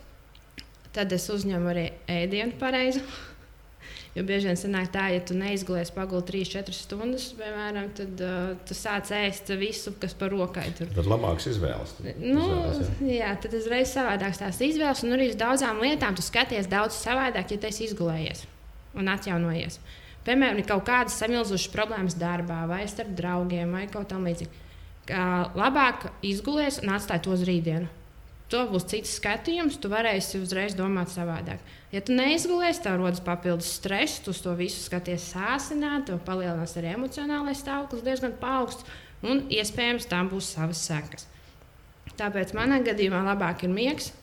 tad es uzņemu arī ēdienu pareizi. Jo bieži vien sanāk tā, ja tu neizgulies paguli 3-4 stundas, piemēram, tad tu sāc ēst visu, kas par rokai tur. Tad labāks izvēles. Jā, tad uzreiz savādāks tās izvēles, un arī uz daudzām lietām tu skaties daudz savādāk, ja tu esi izgulējies un atjaunojies. Piemēram, ir kaut kādas samilzušas problēmas darbā, vai starp draugiem, vai kaut tam līdzīgi. Labāk izgulies un atstāj to uz rītdienu. To būs cits skatījums, tu varēsi uzreiz domāt savādāk. Ja tu neizgulies, tev rodas papildus stress, tu uz to visu skaties sāsināt, tev palielinās arī emocionālais stāvoklis diezgan paaugsts, un iespējams tam būs savas sekas. Tāpēc manā gadījumā labāk ir miegs,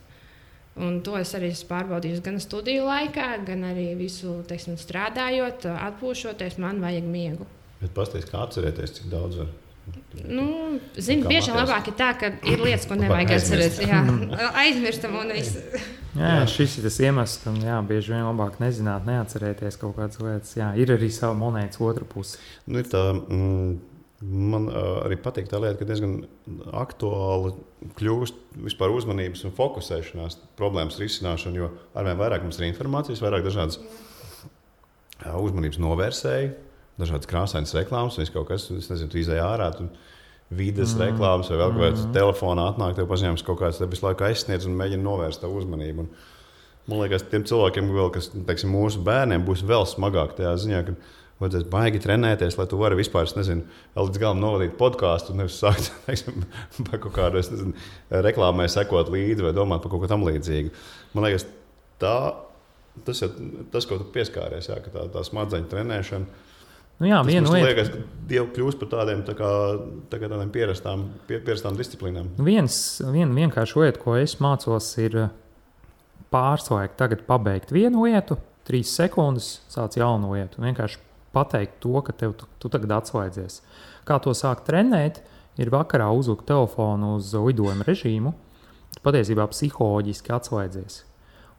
Un to es arī esmu pārbaudījusi gan studiju laikā, gan arī visu, teiksim, strādājot, atpūšoties, man vajag miegu. Bet pastāstiet, kā atcerēties, cik daudz var? Zinu, bieži labāk ir tā, ka ir lietas, ko nevajag atcerēt. Jā, aizmirstam un viss. Jā, šis ir tas iemesls, ka bieži vien labāk nezināt, neatcerēties kaut kādas lietas. Jā, ir arī sava monētas otra puse. Ir tā, man arī patīk tā lieta, ka diezgan aktuāli kļūst vispār uzmanības un fokusēšanās problēmas risināšana, jo arvien vairāk mums ir informācijas, vairāk dažādas uzmanības novērsēji, dažādas krāsainas reklāmas, vai kaut kas, es nezinu, tu izēj ārā, tu vides reklāmas vai vēl kāds telefonā atnāk, tev paziņojums kaut kāds tev visu laiku aizsniedz un mēģina novērst tavu uzmanību. Un man liekas, tiem cilvēkiem, kas, teiksim, mūsu bērniem būs vēl smagāk tajā ziņā, ka vajadzēs baigi trenēties, lai tu vari vispār, vēl līdz galam novadīt podkāstu un nevis sākt, teiksim, par kaut kādu, reklāmai sekot līdzi vai domāt par kaut ko tam līdzīgu. Man liekas, tas, ko tu pieskāries, jā, ka tā smadzeņu trenēšana, tas liekas, ka jau kļūst par tādiem pierastām disciplīnām. Viena vienkārši lieta, ko es mācos, ir pārslēgt tagad pabeigt vienu lietu, 3 sekundes sāc jaunu lietu. Vienkārši pateikt to, ka tu tagad atslēdzies. Kā to sākt trenēt, ir vakarā uzlikt telefonu uz lidojuma režīmu, tu patiesībā psiholoģiski atslēdzies.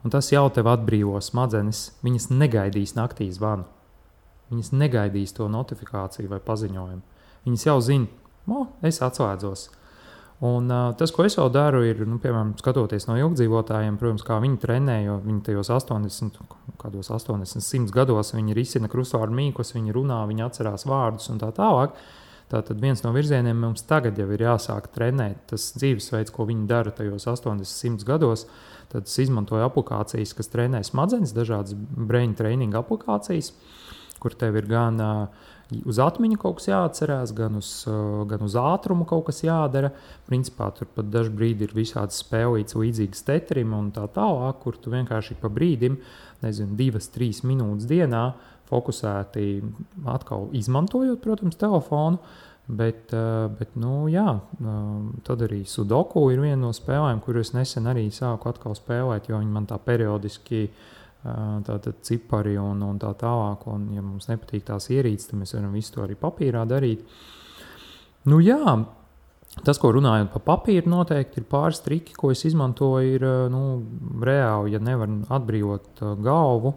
Un tas jau tev atbrīvo smadzenes, viņas negaidīs naktī zvanu. Viņas negaidīs to notifikāciju vai paziņojumu. Viņas jau zina, es atslēdzos. Un tas, ko es vēl daru, ir, piemēram, skatoties no ilgdzīvotājiem, protams, kā viņi trenē, jo viņi tajos 80, 100 gados viņi risina krustvārdu mīklas, viņi runā, viņi atcerās vārdus un tā tālāk. Tātad viens no virzieniem mums tagad jau ir jāsāk trenēt. Tas dzīvesveids, ko viņi dara tajos 80, 100 gados, tad es izmantoju aplikācijas, kas trenē smadzenes, dažādas brain training aplikācijas, kur tev ir gan uz atmiņu kaut kas jāatcerās, gan uz ātrumu kaut kas jādara. Principā tur pat dažu brīdi ir visādas spēlītas līdzīgas Tetrim un tā tālāk, kur tu vienkārši pa brīdim, 2-3 minūtes dienā fokusēti atkal izmantojot, protams, telefonu, bet tad arī Sudoku ir viena no spēlēm, kur es nesen arī sāku atkal spēlēt, jo viņi man tā periodiski tātad cipari un tā tālāk, un ja mums nepatīk tās ierīces, tad mēs varam visu to arī papīrā darīt. Tas, ko runājot par papīru, noteikti ir pāris triki, ko es izmantoju, ir reāli, ja nevar atbrīvot galvu,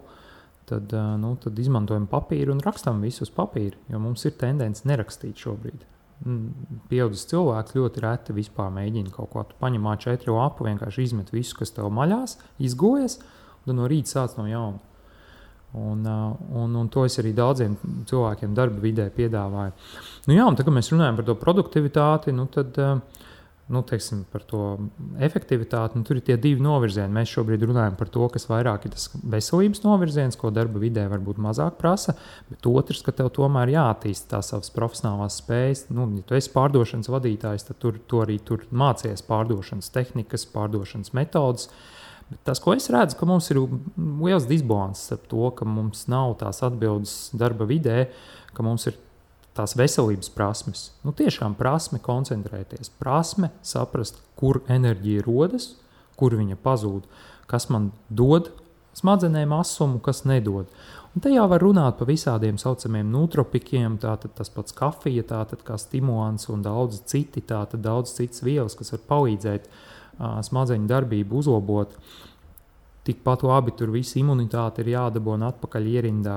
tad izmantojam papīru un rakstam visu uz papīra, jo mums ir tendence nerakstīt šobrīd. Pieaudzis cilvēks ļoti reti vispār mēģina kaut ko. Tu paņem A4 lapu, vienkārši izmet visu, kas tev maļās, izgojas, un no rīta sāc no jauna. Un to es arī daudziem cilvēkiem darba vidē piedāvāju. Un tad, kad mēs runājam par to produktivitāti, tad teiksim, par to efektivitāti, tur ir tie 2 novirzieni. Mēs šobrīd runājam par to, kas vairāk ir tas veselības novirziens, ko darba vidē varbūt mazāk prasa, bet otrs, ka tev tomēr jāattīst tās savas profesionālās spējas. Ja tu esi pārdošanas vadītājs, tad tu arī tur mācies pārdošanas tehnikas, pārdošanas metodas. Bet tas, ko es redzu, ka mums ir liels disbalanss ar to, ka mums nav tās atbildes darba vidē, ka mums ir tās veselības prasmes. Tiešām prasme koncentrēties, prasme saprast, kur enerģija rodas, kur viņa pazūd, kas man dod smadzenēm asumu, kas nedod. Un te jau var runāt par visādiem saucamiem nootropikiem, tātad tas pats kafija, tātad kā stimulants un daudz citas vielas, kas var palīdzēt smadzeņu darbību uzlabot. Tikpat labi tur visa imunitāte ir jādabona atpakaļ ierindā,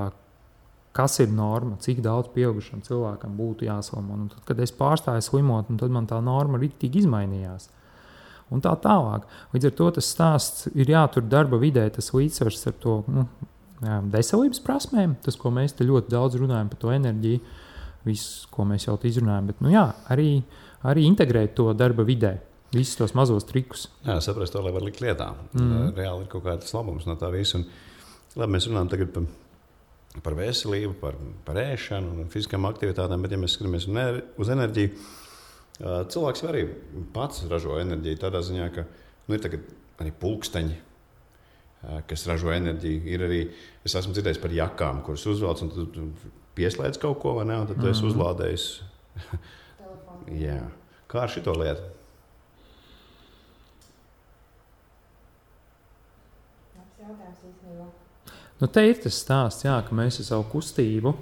kas ir norma, cik daudz pieaugušam cilvēkam būtu jāslimo. Un tad, kad es pārstāju slimot, tad man tā norma riktīgi izmainījās. Un tā tālāk. Līdz ar to tas stāsts ir jātur darba vidē, tas līdzsvars ar to veselības prasmēm, tas, ko mēs te ļoti daudz runājam par to enerģiju, visu, ko mēs jau izrunājam, bet arī integrēt to darba vidē. Visus tos mazos trikus. Jā, saprast to, lai var likt lietā. Reāli ir kaut kāds labums no tā visa. Labi, mēs runājam tagad par veselību, par ēšanu un fiziskām aktivitātēm, bet ja mēs skatāmies uz enerģiju, cilvēks arī pats ražo enerģiju tādā ziņā, ka ir tagad arī pulksteņi, kas ražo enerģiju. Ir arī, es esmu dzirdējis par jakām, kuras uzvelc un tu pieslēdz kaut ko, vai ne, un tad tu esi uzlādējis. Jā. Kā ar šito lietu? Nu, te ir tas stāsts, jā, ka mēs ar savu kustību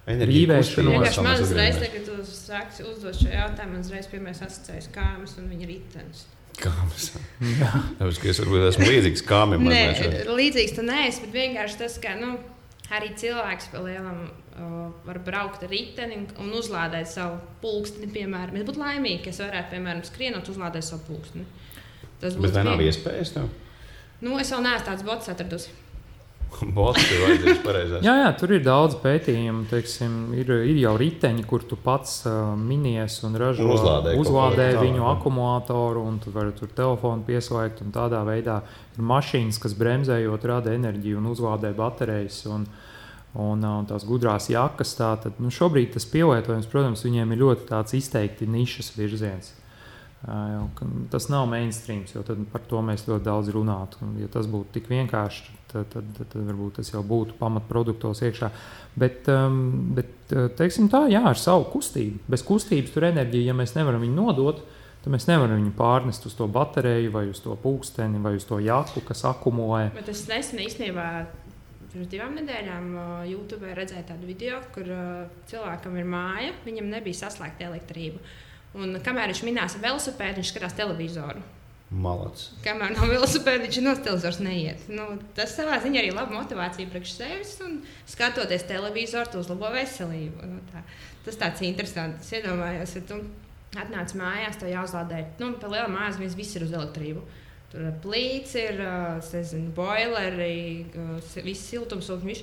Vienkārši man uzreiz, kad tu sāksi uzdot šo jautājumu, man uzreiz pirmais asociējas kāmas un viņa ritenis. Kāmas? Tāpēc, ka es varbūt esmu līdzīgs kāmim. Nē, līdzīgs tu neesi, bet vienkārši tas, ka arī cilvēks pa lielam var braukt ar riteni un uzlādēt savu pulksteni, piemēram. Es būtu laimīgi, ka es varētu, piemēram, skrienot uzlādēt savu pulksteni. Bet vai nav iespējas tev? Es vēl neesmu tāds bots atradusi. Bots ir vajadzīgs pareizās. Jā, tur ir daudz pētījumu, teiksim, ir jau riteņi, kur tu pats minies un ražo, uzlādē viņu akumulātoru, un tu vari tur telefonu pieslēgt, un tādā veidā ir mašīnas, kas bremzējot rada enerģiju un uzlādē baterijas, un tās gudrās jakas. Tātad, šobrīd tas pielietojums, protams, viņiem ir ļoti tāds izteikti nišas virziens. Tas nav mainstreams, jo tad par to mēs ļoti daudz runātu. Ja tas būtu tik vienkārši, tad varbūt tas jau būtu pamatproduktos iekšā. Bet teiksim tā, jā, ar savu kustību. Bez kustības tur enerģija, ja mēs nevaram viņu nodot, tad mēs nevaram viņu pārnest uz to bateriju vai uz to pulksteni vai uz to jaku, kas akumulē. Bet es nesen īstenībā pirms 2 nedēļām YouTube redzēju tādu video, kur cilvēkam ir māja, viņam nebija saslēgta elektrība. Un kamēr viņš minās ar velosipēdu, viņš skatās televizoru. Malacis. Kamēr nav velosipēda, viņš no televizors neiet. Tas savā ziņā arī laba motivācija priekš sevis, un skatoties televizoru, tu uzlabo veselību. Tas tāds interesants. Es iedomājos, ja tu atnāc mājās, tev jāuzlādē. Pa lielām mājās viss ir uz elektrību. Tur plīts ir, boileri, viss siltumsūkņi.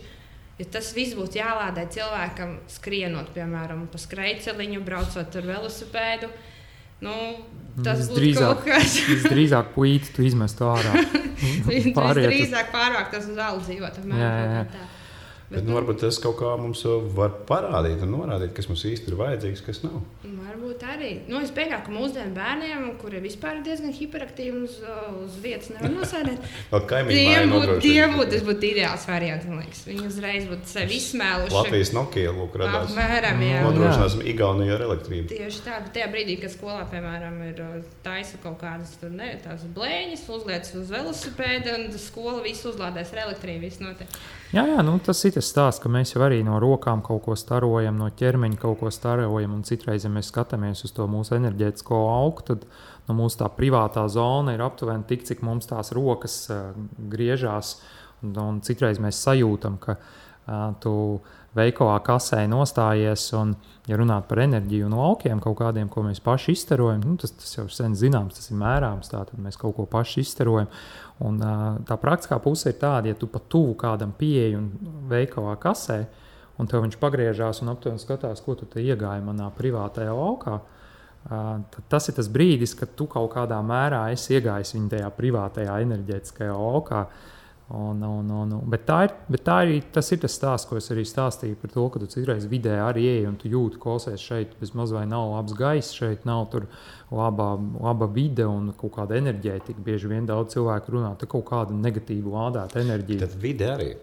Ja tas viss būtu jālādē cilvēkam skrienot, piemēram, pa skrejceliņu, braucot ar velosipēdu, tas būtu kaut kas. Visdrīzāk puīti tu izmestu ārā. Visdrīzāk pārvākt tas uz alu dzīvot. Bet varbūt tas kaut kā mums var parādīt un norādīt, kas mums īsti ir vajadzīgs, kas nav. Varbūt arī. Es pieļauju, ka mūsdienu bērniem, kuri vispār ir diezgan hiperaktīvi uz vietas nevar nosēdēt, tas būtu ideāls variants, man liekas. Viņi uzreiz būtu sevi izsmēluši. Latvijas Nokia radās. Apmēram, jā. Nodrošināsim Igauniju ar elektrību. Tieši tā, bet tajā brīdī, kad skolā, piemēram, ir taisa kaut kādas tās blēņas, uzliec uz velosipēda un skola visu uzlādēs ar elektrību, viss notiek. Jā, tas ir tas stāsts, ka mēs jau arī no rokām kaut ko starojam, no ķermeņa kaut ko starojam, un citreiz, ja mēs skatāmies uz to mūsu enerģētisko augu, tad mūsu tā privātā zona ir aptuveni tik, cik mums tās rokas griežās, un citreiz mēs sajūtam, ka tu veikalā kasē nostājies, un, ja runāt par enerģiju no aukiem kaut kādiem, ko mēs paši izstarojam, tas jau ir sen zināms, tas ir mērāms, tātad mēs kaut ko paši izstarojam. Un tā praktiskā puse ir tāda, ja tu pat tuvu kādam pieeji un veikalā kasē, un tev viņš pagriežās un aptuveni skatās, ko tu te iegāji manā privātajā laukā, tad tas ir tas brīdis, kad tu kaut kādā mērā esi iegājis viņa tajā privātajā enerģētiskajā laukā. Bet tas ir tas stāsts, ko es arī stāstīju par to, ka tu citreiz vidē arī ej un tu jūti, klausies šeit bez maz vai nav labs gaiss, šeit nav tur laba vide un kaut kāda enerģētika. Bieži vien daudz cilvēku runā, te kaut kāda negatīva lādēta enerģija. Tad vide arī,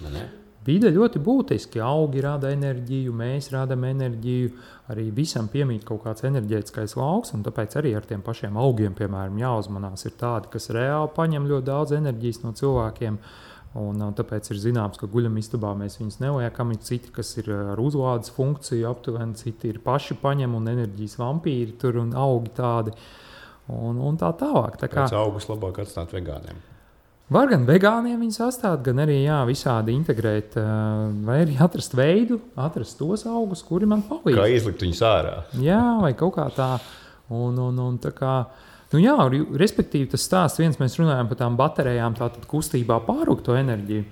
ne? Vide ļoti būtiski. Augi rada enerģiju, mēs radam enerģiju, arī visam piemīt kaut kāds enerģētiskais lauks, un tāpēc arī ar tiem pašiem augiem, piemēram, jāuzmanās ir tādi, kas reāli paņem ļoti daudz enerģijas no cilvēkiem, un tāpēc ir zināms, ka guļamistabā mēs viņus neliekam, ir citi, kas ir ar uzlādes funkciju aptuveni, citi ir paši paņem un enerģijas vampīri tur un augi tādi, un tā tālāk. Pēc augus labāk atstāt vegāniem. Var gan vegāniem viņus atstāt, gan arī visādi integrēt, vai arī atrast veidu, atrast tos augus, kuri man palīdz. Kā izlikt viņus ārā. Jā, vai kaut kā tā. Un tā kā, respektīvi tas stāsts viens, mēs runājam par tām baterijām, tātad kustībā pārrūkt to enerģiju.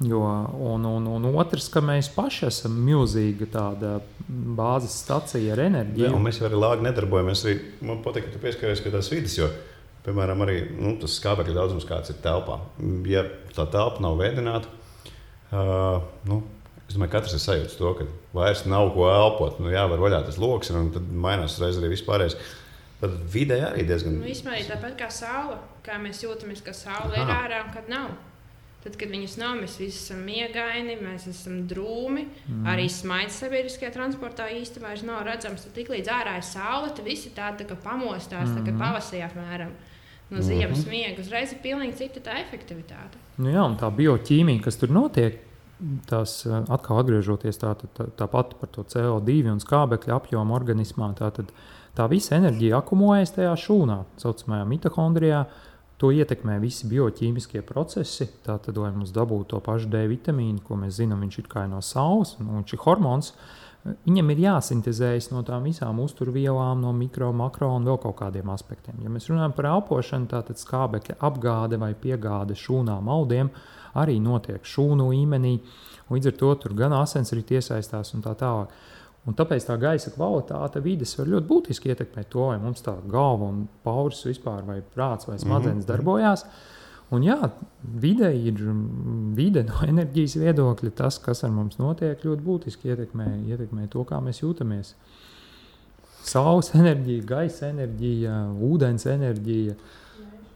Un otrs, ka mēs paši esam milzīga tāda bāzes stacija ar enerģiju. Jā, un mēs arī lāgi nedarbojamies. Man patīk, ka tu pieskaries pie tās vides, jo piemēram, arī tas skābekļa daudzums, kāds ir telpā. Ja tā telpa nav vēdināta, es domāju, katrs ir sajūts to, ka vairs nav ko elpot. Var vaļā tas loks, un tad mainās reiz arī vispārējais. Tad vidē arī diezgan... Vispār tāpat kā saule, kā mēs jūtamies, ka saule ir ārā un kad nav. Tad, kad viņas nav, mēs visi esam miegaini, mēs esam drūmi, arī smaids sabiedriskajā transportā īsti vairs nav redzams. Tad tik līdz ārā ir saule, tad visi tādi tā kā pamostās, tā kā pavasarī apmēram. no ziemas miega, uzreiz ir pilnīgi cita tā efektivitāte. Nu jā, un tā bioķīmija, kas tur notiek, tās atkal atgriežoties tāpat par to CO2 un skābekļa apjomu organismā, tā visa enerģija akumulējas tajā šūnā, saucamajā mitohondrijā. To ietekmē visi bioķīmiskie procesi. Tātad, lai mums dabūtu to pašu D vitamīnu, ko mēs zinām, viņš ir kā no saules, un viņš ir hormons, viņam ir jāsintezējas no tām visām uzturvielām, no mikro, makro un vēl kaut kādiem aspektiem. Ja mēs runājam par elpošanu, tātad skābekļa apgāde vai piegāde šūnām audiem arī notiek šūnu līmenī. Līdz ar to tur gan asins arī iesaistās un tā tālāk. Un tāpēc tā gaisa kvalitāte vides var ļoti būtiski ietekmēt to, vai mums tā galva un pauris vispār, vai prāts vai smadzenes darbojās. Un jā, vide no enerģijas viedokļa, tas, kas ar mums notiek, ļoti būtiski ietekmē to, kā mēs jūtamies. Saules enerģija, gaisa enerģija, ūdens enerģija.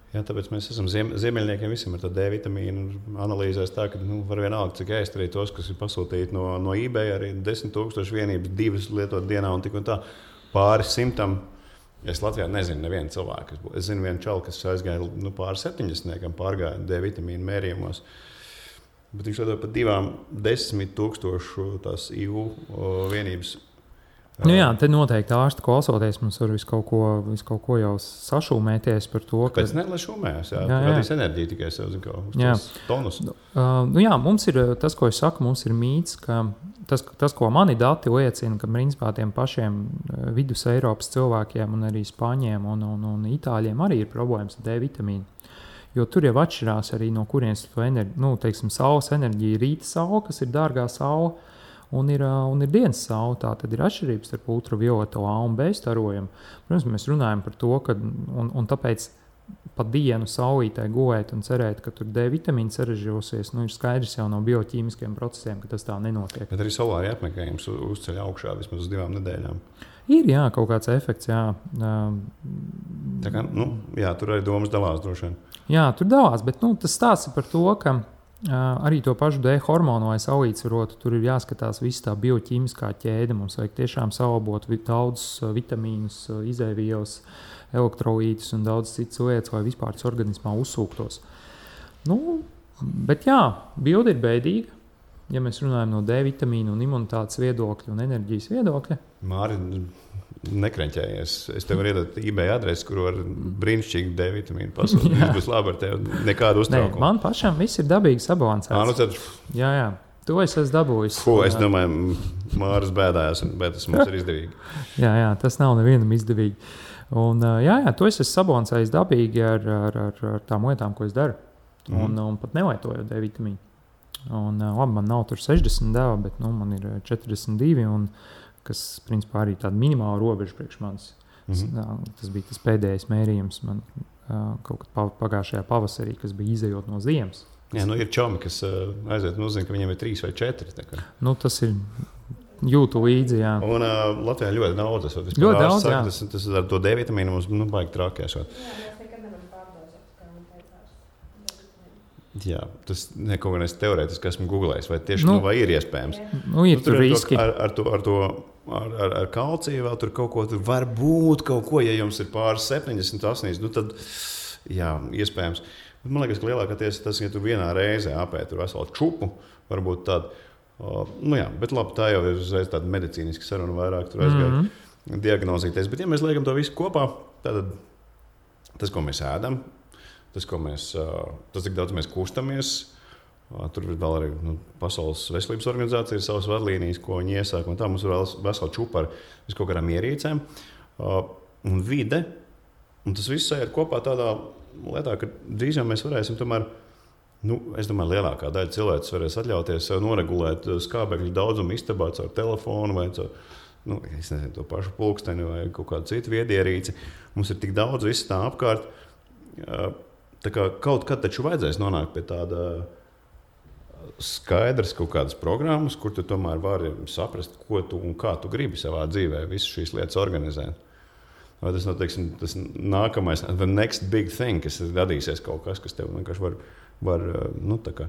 Jā, tāpēc mēs esam ziemeļniekiem visiem ar to D vitamīnu analīzēs tā, ka var vienalga, cik ēst arī tos, kas ir pasūtīti no eBay, arī 10,000 vienības, 2 lietot dienā un tik un tā pāri 100. Es Latvijā nezinu nevienu cilvēku. Es zinu vienu čalu, kas aizgāja pāri 70, pārgāja D vitamīnu mērījumos. Bet viņš lietot pat 10,000 tās EU vienības. Nu jā, te noteikti ārsti klausoties, mums var visu kaut ko jau sašūmēties par to. Kāpēc ne, lai šūmējas? Jā. Radīs enerģiju tikai sev, zin kā, uz tās tonus. Nu jā, mums ir tas, ko es saku, mums ir mīts, ka tas, ko mani dati liecina, ka principā tiem pašiem vidus Eiropas cilvēkiem un arī Spāņiem un Itāļiem arī ir problēmas ar D vitamīnu. Jo tur jau atšķirās arī no kurienes to enerģiju, teiksim, saules enerģija, rīta saule, kas ir dārgā saule, un ir dienas saule. Tā tad ir atšķirības starp ultravioleto A un B starojumu. Protams, mēs runājam par to, ka un tāpēc pa dienu saulītē gulēt un cerēt, ka tur D vitamīns sarežģosies, ir skaidrs jau no bioķīmiskiem procesiem, ka tas tā nenotiek. Bet arī solāri apmeklējums uzceļ augšā vismaz uz 2 nedēļām. Ir, jā, kaut kāds efekts, jā. Tā kā, jā, tur arī domas dalās droši vien. Jā, tur dalās, bet tas stāsts par to, ka arī to pašu D hormonu, lai salīdzvarotu, tur ir jāskatās visa tā bioķīmiskā ķēde. Mums vajag tiešām salabot daudzus vitamīnus, izēvielas, elektrolītus un daudz citas lietas, lai vispār tas organismā uzsūktos. Bet jā, bilde ir bēdīga, ja mēs runājam no D vitamīnu un imunitātes viedokļa un enerģijas viedokļa. Māri, nekreņķējies. Es tev varu iedot eBay adresi, kur var brīnišķīgi D vitamīnu pasūtīt. Viss būs labi ar tevi, nekādu uztraukumu. Man pašam viss ir dabīgi sabalansēts. Tad... Jā. To es esmu dabūjis. Es domāju, Māris bēdājās, bet tas mums ir izdevīgi. Jā, tas nav nevienam izdevīgi. Un, jā, to es esmu sabalansējis dabīgi ar tām lietām, ko es daru. Un pat nelietojot D vitamīnu. Un, labi, man nav tur 60 deva, bet man ir 42, un, kas principā arī tāda minimāla robeža priekš manis. Tas bija tas pēdējais mērījums man kaut kad pagājušajā pavasarī, kas bija izejot no ziemas. Jā, ir čomi, kas aiziet un uzzina, ka viņiem ir 3 vai 4. Tas ir jūtu līdzi, jā. Un Latvijā ļoti daudz. Ļoti daudz, jā. Tas ar to D vitamīnu mums baigi trākēšot. Jā, tas kaut kā teorētiski esmu googlējis, vai tieši vai ir iespējams. Ir tur riski. Ar kalciju vēl tur kaut ko, tur var būt kaut ko, ja jums ir pāris 70, 80, tad jā, iespējams. Bet man liekas, ka lielākais tas, ja tu vienā reizē apēd tur veselu čupu, varbūt tādu, bet labi, tā jau ir uzreiz tāda medicīniska saruna vairāk, tur aizgāja diagnozīties. Bet ja mēs liekam to visu kopā, tad tas, ko mēs ēdam, tas, cik daudz mēs kustamies, tur vēl arī Pasaules veselības organizācija ir savas vadlīnijas, ko viņi iesāk, un tā mums ir vesela čupa ar kaut kādām ierīcēm un vide, un tas viss ir kopā tādā lietā, ka drīz jau mēs varēsim tomēr, es domāju, lielākā daļa cilvēks varēs atļauties sev noregulēt skābekļu daudzumu istabā caur telefonu vai caur, es nezinu, to pašu pulksteni vai kaut kādu citu viedierīci. Mums ir tik daudz viss tā apkārt, tā kā kaut kad taču vajadzēs nonākt pie tāda skaidrs kaut kādas programmas, kur tu tomēr vari saprast, ko tu un kā tu gribi savā dzīvē visu šīs lietas organizēt. Vai tas, tas nākamais, the next big thing, kas radīsies kaut kas tev vienkārši var tā kā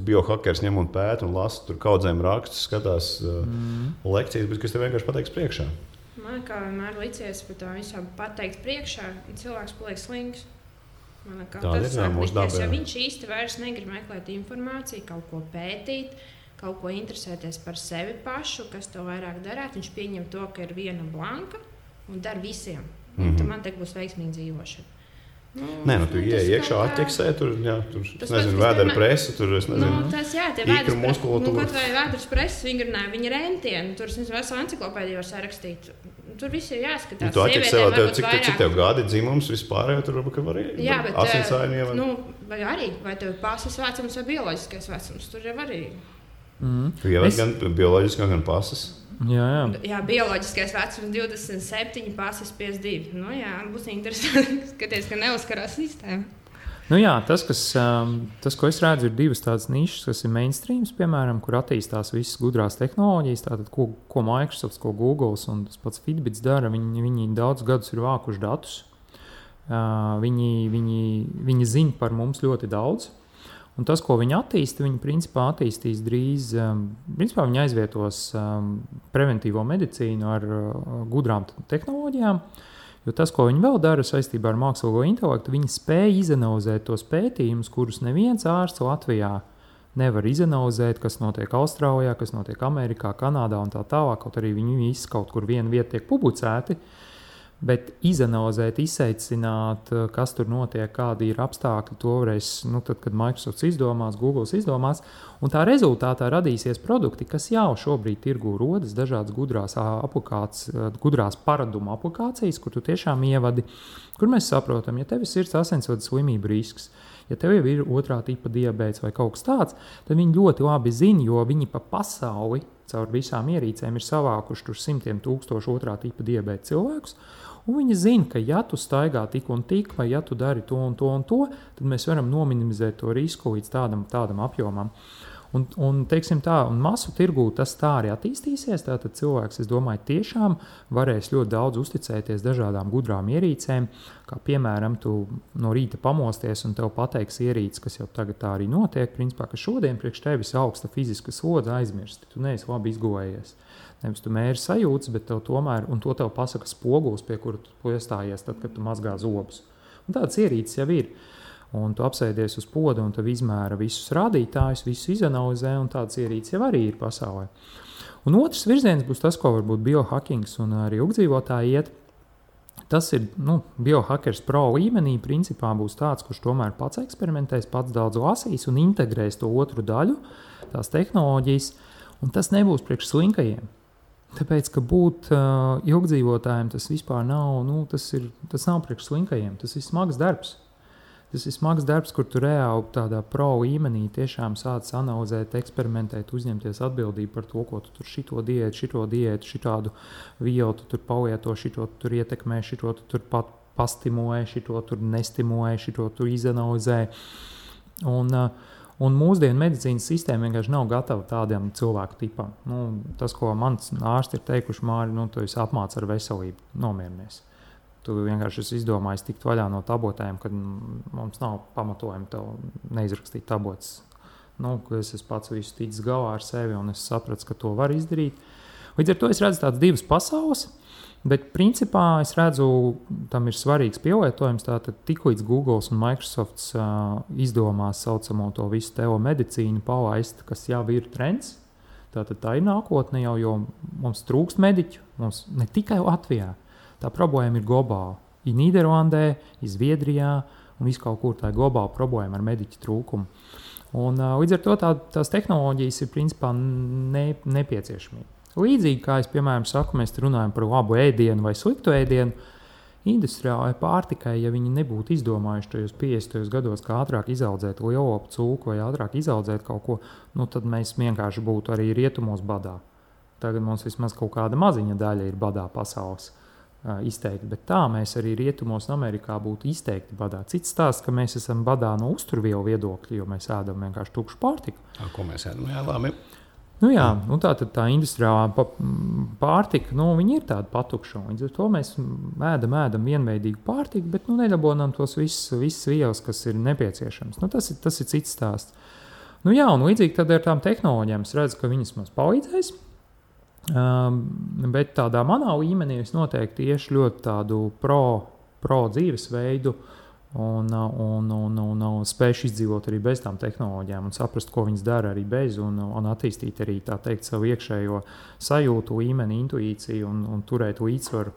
biohakers ņem un pēt un lasa tur kaudzēm rakstus, skatās lekcijas, bet kas tev vienkārši pateiks priekšā. Man kā vienmēr licies par to visam pateikt priekšā, un cilvēks paliek slings. Tas sākties, jo viņš īsti vairs negrib meklēt informāciju, kaut ko pētīt, kaut ko interesēties par sevi pašu, kas to vairāk darāt. Viņš pieņem to, ka ir viena blanka un dara visiem. Tad man te būs veiksmīga dzīvošana. Nē, tu ieej iekšā, atķeksē, tur vēdera presa, tur, tas, jā, tie ikra muskulatūra. Kaut vai vēdras presa vingrināja, viņa rentieni, tur veselu enciklopēdiju var sarakstīt. Tur viss ir jāskatās. Tu atķeksē, cik tev gadi dzimums vispārējo, tur var asinsājumu ievēt. Vai arī, vai tev pasas vecums vai bioloģiskais vecums, tur jau arī. Tu ievēt gan bioloģiskā, gan pasas. Jā, bioloģiskais vecums 27, pasas 52. Būs interesanti skatīties, ka neuzkarās sistēma. Tas, ko es redzu, ir divas tādas nišas, kas ir mainstreams, piemēram, kur attīstās visas gudrās tehnoloģijas, tātad, ko Microsoft, ko Google un tas pats Fitbits dara. Viņi daudz gadus ir vākuši datus. Viņi zina par mums ļoti daudz. Un tas, ko viņi attīsta, viņi principā attīstīs drīz, principā viņi aizvietos preventīvo medicīnu ar gudrām tehnoloģijām, jo tas, ko viņi vēl dara saistībā ar mākslīgo intelektu, viņi spēj izanalizēt tos pētījumus, kurus neviens ārsts Latvijā nevar izanalizēt, kas notiek Austrālijā, kas notiek Amerikā, Kanādā un tā tālāk, kaut arī viņi visi kaut kur viena vieta tiek publicēti. Bet izanalizēt, izseicināt, kas tur notiek, kādi ir apstākļi, to varēs, tad, kad Microsoft izdomās, Google izdomās, un tā rezultātā radīsies produkti, kas jau šobrīd tirgū rodas, dažādas gudrās paradumu aplikācijas, kur tu tiešām ievadi, kur mēs saprotam, ja tev ir sirds asinsvadu slimību risks, ja tev jau ir otrā tipa diabēts vai kaut kas tāds, tad viņi ļoti labi zina, jo viņi pa pasauli caur visām ierīcēm ir savākuši tur 100,000 otrā tipa diabēta cilvēkus. Un viņi zina, ka ja tu staigā tik un tik, vai ja tu dari to un to un to, tad mēs varam nominimizēt to risku līdz tādam apjomam. Un teiksim tā, un masu tirgū tas tā arī attīstīsies, tātad cilvēks, es domāju, tiešām varēs ļoti daudz uzticēties dažādām gudrām ierīcēm, kā piemēram, tu no rīta pamosties un tev pateiks ierīces, kas jau tagad tā arī notiek, principā, ka šodien priekš tevis augsta fiziska slodze aizmirsti, tu neesi labi izgulējies. Nevis tu mēri sajūtas, bet tev tomēr, un to tev pasaka spogulis, pie kura tu iestājies tad, kad tu mazgā zobus. Un tādas ierīces jau ir. Un tu apsēdies uz poda un tev izmēra visus rādītājus, visus izanalizē, un tādas ierīces jau arī ir pasaulē. Un otrs virziens būs tas, ko varbūt biohackings un arī ilgdzīvotāji iet. Tas ir, biohackers pro līmenī principā būs tāds, kurš tomēr pats eksperimentēs, pats daudz lasīs un integrēs to otru daļu, tās tehnoloģijas, un tas nebūs priekš slinkajiem. Tāpēc, ka būt ilgdzīvotājiem tas vispār nav, tas nav priekš slinkajiem, tas ir smags darbs. Tas ir smags darbs, kur tu reāli tādā pro līmenī tiešām sāc analizēt, eksperimentēt, uzņemties atbildību par to, ko tu tur šito diētu, šitādu vielu tu tur palieto, šito tu tur ietekmē, šito tu tur pat pastimulē, šito tur nestimulē, šito tur izanalizē. Un mūsdienu medicīnas sistēma vienkārši nav gatava tādiem cilvēku tipam. Tas, ko mans ārsti ir teikuši, Māri, tu esi apmāc ar veselību, nomierinies. Tu vienkārši esi izdomājis tikt vaļā no tabletēm, kad mums nav pamatojumi tev neizrakstīt tabletes. Es esmu pats visu ticis galā ar sevi un es sapratu, ka to var izdarīt. Līdz ar to es redzu tādas divas pasaules, bet principā es redzu, tam ir svarīgs pielietojums. Tātad tiklīdz Google un Microsoft izdomās saucamo to visu telemedicīnu palaist, kas jau ir trends, tātad tā ir nākotne jau, jo mums trūkst mediķu, mums ne tikai Latvijā. Tā problēma ir globāla. Ir Nīderlandē, ir Zviedrijā un viss kaut kur tā ir globāla problēma ar mediķu trūkumu. Un, līdz ar to tās tehnoloģijas ir principā nepieciešamība. Līdzīgi kā es, piemēram, saku, mēs runājam par labu ēdienu vai sliktu ēdienu, industriālai pārtikai, ja viņi nebūtu izdomājuši tajos 50. gados, kā ātrāk izaudzēt lielopu cūku vai ātrāk izaudzēt kaut ko, tad mēs vienkārši būtu arī rietumos badā. Tagad mums vismaz kaut kāda maziņa daļa ir badā pasaules. Izteikti, bet tā mēs arī rietumos un Amerikā būtu izteikti badā. Cits stāsts, ka mēs esam badā no uzturvielu viedokļa, jo mēs ēdam vienkārši tukšu pārtiku. Ko mēs ēdam? Jā, labi. Tā industriālā pārtika, viņi ir tāda patukša. Līdz ar to mēs ēdam vienveidīgu pārtiku, bet nedabonām tos visas vielas, kas ir nepieciešams. Tas ir cits stāsts. Un līdzīgi tad ar tām tehnoloģijām es redzu, ka viņas mums palīdzēs. Bet tādā manā līmenī es noteikti tieši ļoti tādu pro dzīvesveidu un spējuši izdzīvot arī bez tām tehnoloģijām un saprast, ko viņas dara arī bez, un attīstīt arī tā teikt savu iekšējo sajūtu, līmeni, intuīciju un turēt līdzsvaru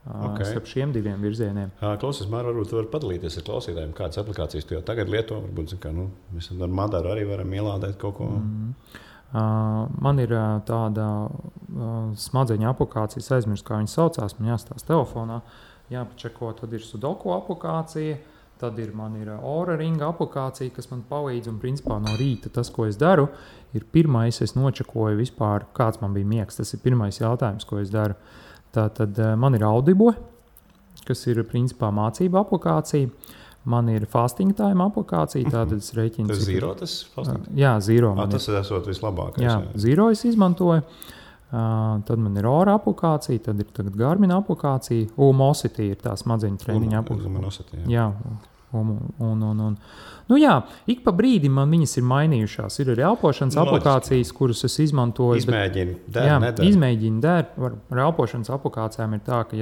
starp šiem diviem virzieniem. Klausies, Māra, varbūt tu vari padalīties ar klausītājiem, kādas aplikācijas tu jau tagad lieto, varbūt, mēs ar Madaru arī varam ielādēt kaut ko. Man ir tāda smadzeņu aplikācija, aizmirst, kā viņa saucās, man jāstāsta telefonā, jāpačeko, tad ir Sudoku aplikācija, tad man ir Oura ringa aplikācija, kas man palīdz, un principā no rīta tas, ko es daru, ir pirmais, es nočekoju vispār, kāds man bija miegs, tas ir pirmais jautājums, ko es daru. Tātad man ir Audible, kas ir principā mācība aplikācija, man ir Fasting Time aplikācija, tātad es rēķinu. Tas Zero, tas Fasting? Jā, Zero. Tas esot vislabākais. Jā, Zero es izmantoju. Tad man ir Oura aplikācija, tad ir Garmin aplikācija, Umosity ir tā smadzeņu treniņa aplikācija. Jā, ik pa brīdim man viņas ir mainījušās. Ir arī elpošanas aplikācijas, kuras es izmantoju. Izmēģinu der. Ar elpošanas aplikācijām ir tā, ka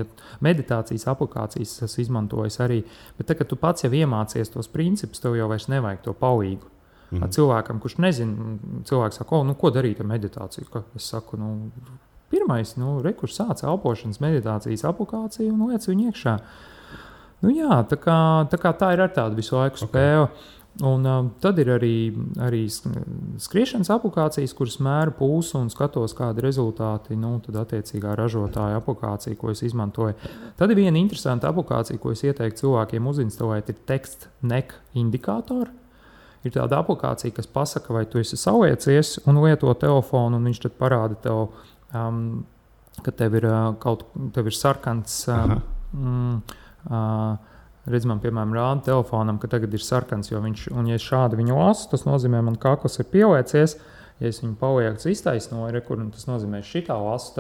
meditācijas aplikācijas es izmantoju arī, bet tā, kad tu pats jau iemācies tos principus, tev jau vairs nevajag to palīgu. Cilvēkam, kurš nezina, cilvēks saka, ko darīt ar meditāciju? Es saku, pirmais, kurš sāc elpošanas meditācijas aplikāciju un liec viņu iekšā. Tā kā tā ir ar tādu visu laiku spēju. Un tad ir arī skriešanas aplikācijas, kuras mēra pulsu un skatos, kādi rezultāti, tad attiecīgā ražotāja aplikācija, ko es izmantoju. Tad ir viena interesanta aplikācija, ko es ieteiktu cilvēkiem uzinstalēt, ir Text Neck indikātori. Ir tāda aplikācija, kas pasaka, vai tu esi saliecies un lieto telefonu, un viņš tad parāda tev, ka tev ir sarkans, redz man, piemēram, rāda telefonam, ka tagad ir sarkans, un ja šādi viņu lasu, tas nozīmē, man kakls ir pieliecies. Ja es viņu palieku iztaisnoju, tas nozīmē, šitā lasu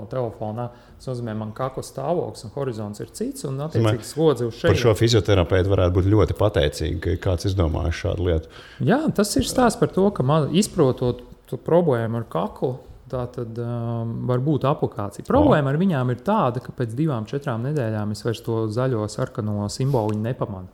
telefonā, tas nozīmē, man kakla stāvoklis un horizonts ir cits, un attiecīgi slodzi uz šeit. Par šo fizioterapeitu varētu būt ļoti pateicīgi, ka kāds izdomājis šādu lietu. Jā, tas ir stāsts par to, ka izprotot problēmu ar kaklu, tā tad var būt aplikācija. Problēma ar viņām ir tāda, ka pēc 2-4 nedēļām es vairs to zaļo sarkano simboliņu nepamanu.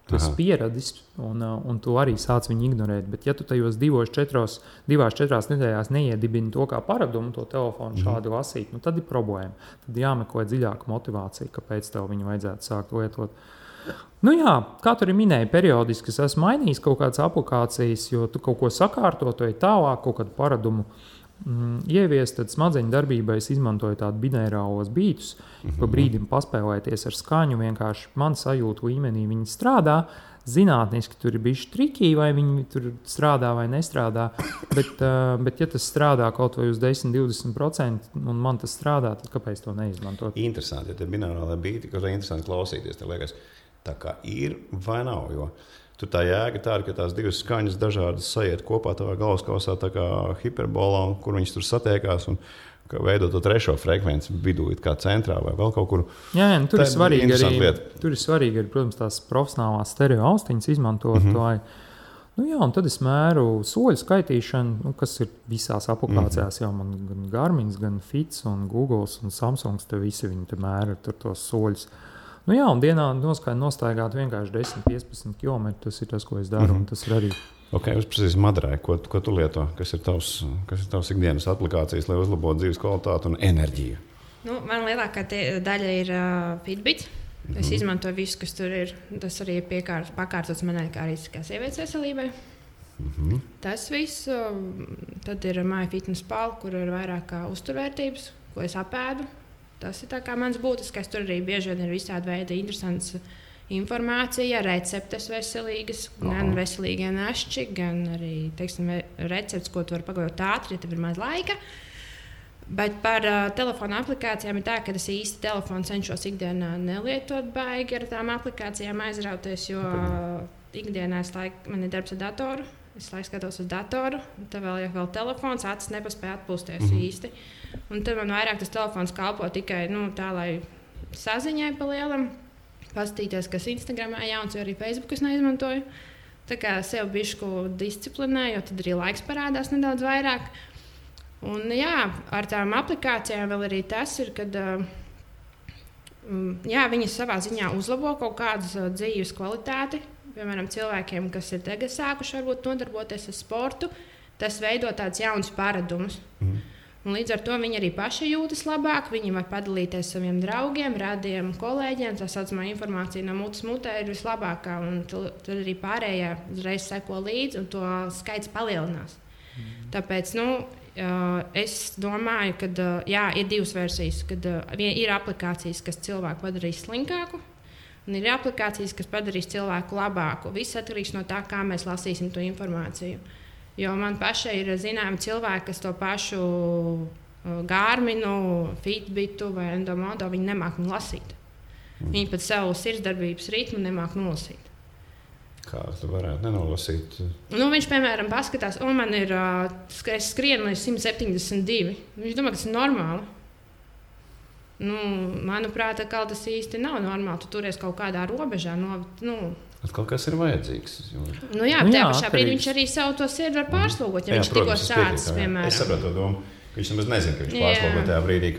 Tu esi pieradis, un tu arī sāc viņu ignorēt. Bet, ja tu tajos 2-4 nedēļās neiedibini to kā paradumu, to telefonu šādi lasīt, tad ir problēma. Tad jāmeklē dziļāka motivācija, kāpēc tev viņu vajadzētu sākt lietot. Kā tu arī minēji, periodiski es esmu mainījis kaut kādas aplikācijas, jo tu kaut ko sakārto, tu ej tālāk, kaut kādu paradumu ieviest, tad smadzeņu darbībai es izmantoju tādu binērālos bītus, pa brīdim paspēlēties ar skaņu, vienkārši man sajūtu līmenī viņi strādā, zinātniski tur ir bijuši triki, vai viņi tur strādā vai nestrādā, bet ja tas strādā kaut vai uz 10-20% un man tas strādā, tad kāpēc to neizmantot? Interesanti, ja tie binērālie bīti, ka ir interesanti klausīties, te liekas, tā kā ir vai nav, jo tur tā jēga tāda, ka tās divas skaņas dažādas sajiet kopā tavā galvaskausā tā kā hiperbolā, kur viņas tur satiekās un veido to trešo frekvenci vidū, kā centrā vai vēl kaut kur. Jā, tur ir svarīgi arī, protams, tās profesionālās stereo austiņas izmantot. Un tad es mēru soļu skaitīšanu, kas ir visās aplikācijās. Jau man gan Garmins, gan Fits un Google un Samsungs, te visi viņi te mēra tur tos soļus. Un dienā nostaigāt vienkārši 10-15 km, tas ir tas, ko es daru, un tas ir arī. Uzprasīs Madarai, ko tu lieto? Kas ir tavs ikdienas aplikācijas, lai uzlabotu dzīves kvalitāti un enerģiju? Man lielākā daļa ir Fitbit. Es izmantoju visu, kas tur ir. Tas arī ir pakārtots manai kā arī kā sievietes veselībai. Tas viss. Tad ir MyFitnessPal, kur ir vairāk kā uzturvērtības, ko es apēdu. Tas ir tā kā mans būtiskais. Tur arī bieži vien ir visādi veidi interesants informācija, receptes veselīgas, gan veselīgie našķi, gan arī, recepts, ko tu vari pagatavot ātri, ja tev ir maz laika. Bet par telefona aplikācijām ir tā, ka es īsti telefonu cenšos ikdienā nelietot baigi ar tām aplikācijām aizrauties, jo ikdienā man ir darbs ar datoru. Es skatos uz datoru, tad vēl telefons, acis nepaspēja atpūsties īsti. Un tad man vairāk tas telefons kalpo tikai tā, lai saziņai pa lielam, paskatīties, kas Instagramā jauns, jo arī Facebook es neizmantoju. Tā kā sev bišku disciplinēju, jo tad arī laiks parādās nedaudz vairāk. Un ar tām aplikācijām vēl arī tas ir, kad Jā, viņi savā ziņā uzlabo kaut kādas dzīves kvalitāti. Piemēram, cilvēkiem, kas ir tagad sākuši varbūt nodarboties ar sportu, tas veido tādus jaunus paradumus. Un līdz ar to viņi arī paši jūtas labāk. Viņi var padalīties ar saviem draugiem, radiem, kolēģiem. Tā saucamā informācija no mutes mutē ir vislabākā. Tad arī pārējie uzreiz seko līdzi, un to skaits palielinās. Tāpēc es domāju, ka ir divas versijas. Kad ir aplikācijas, kas cilvēku padarīs slinkāku, un ir aplikācijas, kas padarīs cilvēku labāku. Viss atkarīgs no tā, kā mēs lasīsim to informāciju. Jo man pašai ir zināmi cilvēki, kas to pašu Garminu, Fitbitu vai Endomodo viņi nemāk lasīt. Viņi pat savu sirdsdarbības ritmu nemāk nolasīt. Kā tu varētu nenolasīt? Viņš, piemēram, paskatās, man ir, es skrienu līdz 172. Viņš domā, ka tas ir normāli. Manuprāt, tas īsti nav normāli. Tu turies kaut kādā robežā. Kaut kas ir vajadzīgs. Tajā pašā brīdī viņš arī savu to sirdi var pārslogot. Ja viņš tikko sācis, piemēram. Es saprotu to domu. Viņš nemaz nezina, ka viņš pārslogo tajā brīdī,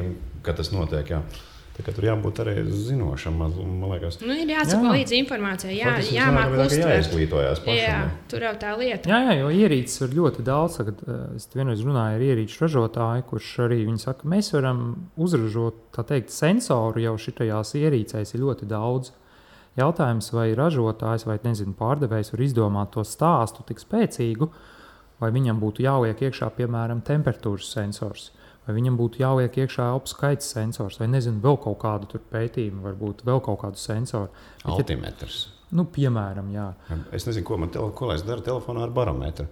kad tas notiek. Jā. Tā kā tur jābūt arī zinošam, man liekas. Ir jāsako līdzi informācijai, jāmāk uztvert. Jāizglītojās pašam. Jā, tur jau tā lieta. Jā, jo ierīces ir ļoti daudz. Es vienreiz runāju ar ierīču ražotāju, kurš arī viņi saka, mēs varam uzražot, tā teikt, sensoru jau šitajās ierīcēs ir ļoti daudz. Jautājums, vai ražotājs vai pārdevējs var izdomāt to stāstu tik spēcīgu, vai viņam būtu jāliek iekšā, piemēram, temperatūras sensors, vai viņam būtu jāliek iekšā elpu skaits sensors, vai vēl kaut kādu pētījumu, varbūt vēl kaut kādu sensoru. Altimetrs. Piemēram, jā. Es nezinu, ko lai es daru telefonā ar barometru.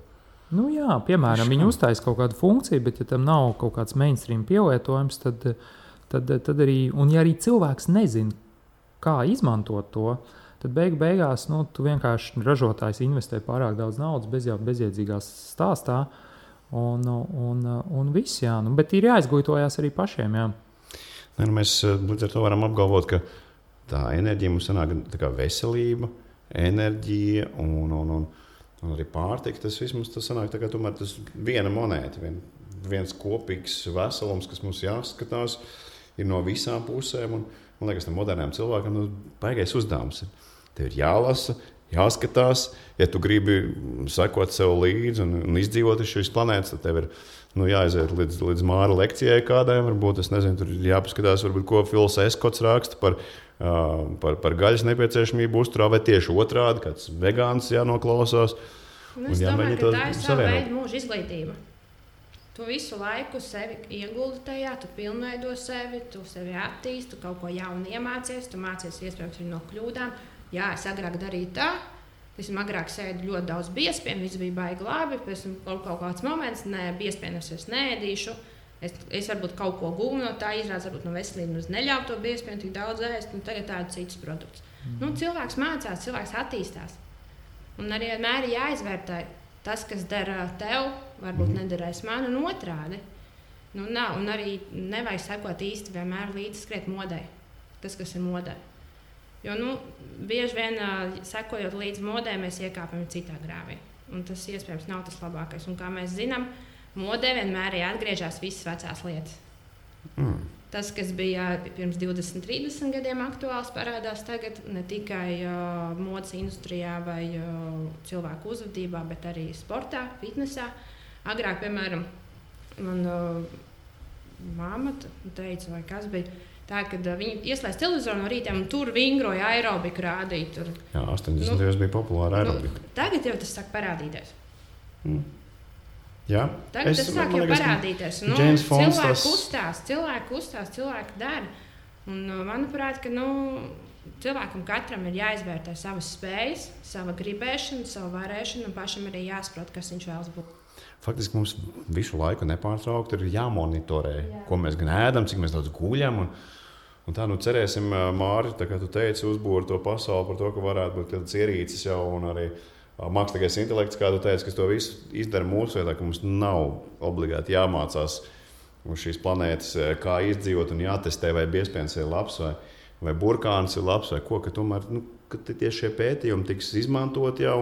Jā, piemēram, viņi uztais kaut kādu funkciju, bet ja tam nav kaut kāds mainstream pielietojums, tad arī, un ja arī cilvēks nezina, kā izmantot to, tad beigās tu vienkārši ražotājs investē pārāk daudz naudas bezjēdzīgās stāstā, un viss, jā. Bet ir jāizglītojās arī pašiem, jā. Mēs līdz ar to varam apgalvot, ka tā enerģija mums sanāk tā kā veselība, enerģija un arī pārtika. Tas viss mums sanāk tā kā tomēr tas viena monēta, viens kopīgs veselums, kas mums jāskatās, ir no visām pusēm. Man liekas, tam modernām cilvēkam baigais uzdevums ir. Tev ir jālasa, jāskatās. Ja tu gribi sekot sev līdzi un izdzīvot uz šīs planētas, tad tev ir jāaiziet līdz Māra lekcijai kādai. Varbūt, es nezinu, tur ir jāpaskatās, varbūt, ko Fils Eskots raksta par gaļas nepieciešamību uzturā, vai tieši otrādi, kāds vegāns jānoklausās. Es domāju, ka tā ir sava veida mūža izglītība. Tu visu laiku sevi ieguldi tajā, tu pilnveido sevi, tu sevi attīsti, tu kaut ko jaunu iemācies, tu mācies iespējams arī no kļūdām. Jā, es agrāk darīju tā, es agrāk sēdu ļoti daudz biespienu, viss bija baigi labi, pēc tam kaut kāds moments, biespienus es neēdīšu, es varbūt kaut ko gūnu no tā, izrādās varbūt no veselības neļauju to biespienu tik daudz ēst, un tagad tādu citus produktus. Cilvēks mācās, cilvēks attīstās, un arī vienmēr ir jāizvērtē. Tas, kas dara tev, varbūt nederēs man un otrādi. Un arī nevajag sekot īsti vienmēr līdzi skriet modē. Tas, kas ir modē. Jo bieži vien sekojot līdzi modē, mēs iekāpjam citā grāvī. Un tas iespējams nav tas labākais. Un kā mēs zinām, modē vienmēr ir atgriežas visas vecās lietas. Tas, kas bija pirms 20, 30 gadiem aktuāls, parādās tagad ne tikai modes industrijā vai cilvēku uzvedībā, bet arī sportā, fitnesā. Agrāk, piemēram, man mamma teica, vai kas bija tā, kad viņi ieslēdz televizoru no rītiem un tur vingroja aerobiku rādīt. Jā, 80. bija populāra aerobika. Tagad jau tas sāk parādīties. Jā, tagad tas sāk jau parādīties. Cilvēki kustās, cilvēki dara. Un, manuprāt, ka cilvēkam katram ir jāizvērtē savas spējas, sava gribēšana, sava varēšana, un pašam arī jāsaprot, kas viņš vēlas būt. Faktiski mums visu laiku nepārtraukti ir jāmonitorē, ko mēs gan ēdam, cik mēs daudz guļam. Un tā cerēsim, Māri, tā kā tu teici, uzbūri to pasauli par to, ka varētu būt kādas ierīces jau un arī mākslīgais intelekts, kā tu teici, kas to visu izdara mūsu vietā, ka mums nav obligāti jāmācās uz šīs planētas, kā izdzīvot un jātestē, vai biespiens ir labs, vai burkāns ir labs, vai ko, ka tomēr, ka tieši šie pētījumi tiks izmantot jau,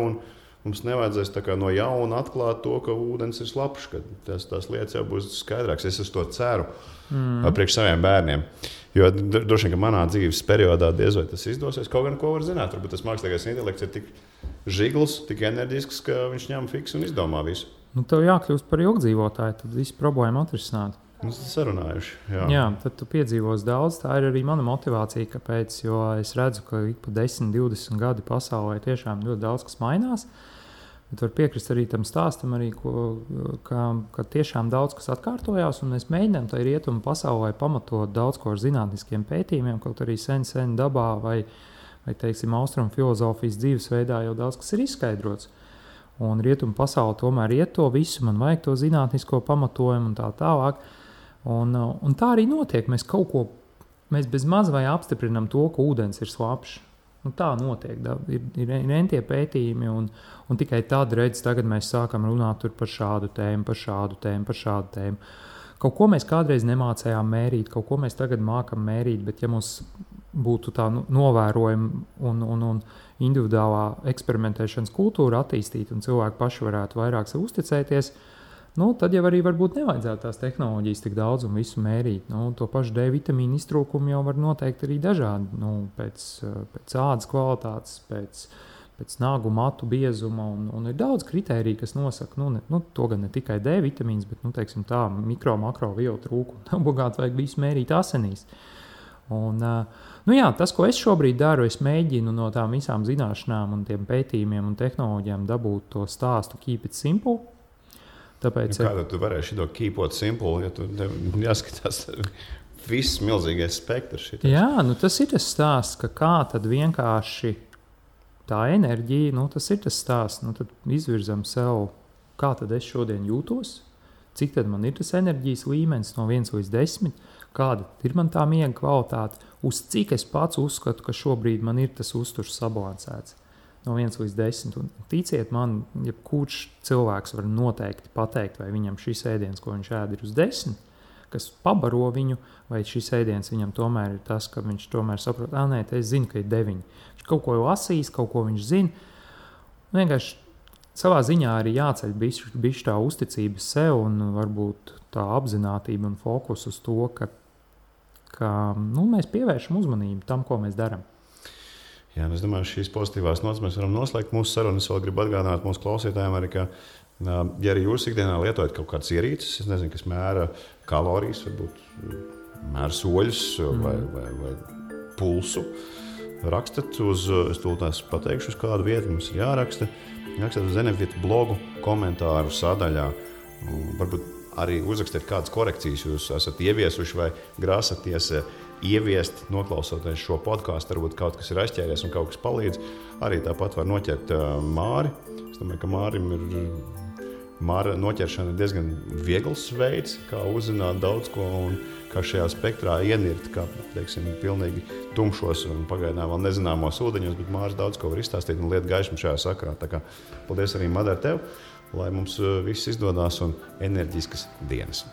mums nevajadzēs tā kā no jauna atklāt to, ka ūdens ir slapjš, ka tās lietas jau būs skaidrākas. Es uz to ceru priekš saviem bērniem. Jo droši vien, ka manā dzīves periodā diez vai tas izdosies. Kaut gan ko var zināt, varbūt tas mākslīgais intelekts ir tik žigls, tik enerģisks, ka viņš ņem fiks un izdomā visu. Nu, tev jākļūst par ilgdzīvotāju, tad visu problēmu atrisināt. Mēs esam sarunājuši. Jā, tad tu piedzīvos daudz. Tā ir arī mana motivācija, kāpēc, jo es redzu, ka ik pa 10, 20 gadi pasaulē tiešām ļoti daudz kas mainās. Bet var piekrist arī tam stāstam, arī, ka tiešām daudz kas atkārtojās, un mēs mēģinām tai rietumu pasaulē pamatot daudz ko ar zinātniskiem pētījumiem, kaut arī sen dabā vai teiksim, austrumu filozofijas dzīvesveidā jau daudz kas ir izskaidrots. Un rietumu pasaule tomēr iet to visu, man vajag to zinātnisko pamatojumu un tā tālāk. Un tā arī notiek. Mēs bez maz vai apstiprinām to, ka ūdens ir slapjš. Nu, tā notiek. Ir entie pētījumi, un tikai tad tagad mēs sākam runāt par šādu tēmu, par šādu tēmu. Kaut ko mēs kādreiz nemācējām mērīt, kaut ko mēs tagad mākam mērīt, bet ja mums būtu tā novērojama un individuālā eksperimentēšanas kultūra attīstīta un cilvēki paši varētu vairāk sev uzticēties, tad jau arī varbūt nevajadzētu tās tehnoloģijas tik daudz un visu mērīt. To pašu D vitamīnu iztrūkumu jau var noteikt arī dažādi, pēc ādas kvalitātes, pēc nagu matu biezuma, un ir daudz kritēriju, kas nosaka, to gan ne tikai D vitamīns, bet, teiksim tā, makro vielu trūkumu. Obligāti vajag visu mērīt asinīs. Un, tas, ko es šobrīd daru, es mēģinu no tām visām zināšanām un tiem pētījumiem un tehnoloģijām dabūt to stāstu keep it simple. Tāpēc, kādā tu varēsi to keepot simple, ja tu jāskatās viss milzīgais spektrs? Jā, tas ir tas stāsts, ka kā tad vienkārši tā enerģija, tas ir tas stāsts. Tad izvirzam sev, kā tad es šodien jūtos, cik tad man ir tas enerģijas līmenis no 1 līdz 10, kāda ir man tā miega kvalitāte, uz cik es pats uzskatu, ka šobrīd man ir tas uzturs sabalansēts. No 1 līdz 10. Un ticiet man, jebkurš cilvēks var noteikti pateikt, vai viņam šis ēdiens, ko viņš ēd, ir uz 10, kas pabaro viņu, vai šis ēdiens viņam tomēr ir tas, ka viņš tomēr saprot, nē, es zinu, ka ir 9. Viņš kaut ko lasīs, kaut ko viņš zina. Vienkārši savā ziņā arī jāceļ bišķi tā uzticība sev un varbūt tā apzinātība un fokus uz to, ka mēs pievēršam uzmanību tam, ko mēs darām. Jā, es domāju, šīs pozitīvās notas mēs varam noslēgt mūsu sarunu. Es vēl gribu atgādināt mūsu klausītājiem arī, ka, ja arī jūs ikdienā lietojat kaut kādas ierīces, es nezinu, kas mēra kalorijas, varbūt mēra soļus vai pulsu, rakstat uz, es tūlīt pateikšu, uz kādu vietu mums ir jāraksta. Rakstat uz Zenefit blogu komentāru sadaļā. Varbūt arī uzrakstiet kādas korekcijas jūs esat ieviesuši vai grāsaties ieviest, noklausoties šo podkāstu, varbūt kaut kas ir aizķēries un kaut kas palīdz. Arī tāpat var noķert Māri. Es domāju, ka Māra noķeršana ir diezgan viegls veids, kā uzzināt daudz ko un kā šajā spektrā ienirt, kā, teiksim, pilnīgi tumšos un pagaidām vēl nezināmos ūdeņos, bet Māris daudz ko var izstāstīt un liet gaišumu šajā sakarā. Tā kā paldies arī, Madara, tev, lai mums viss izdodās un enerģiskas dienas.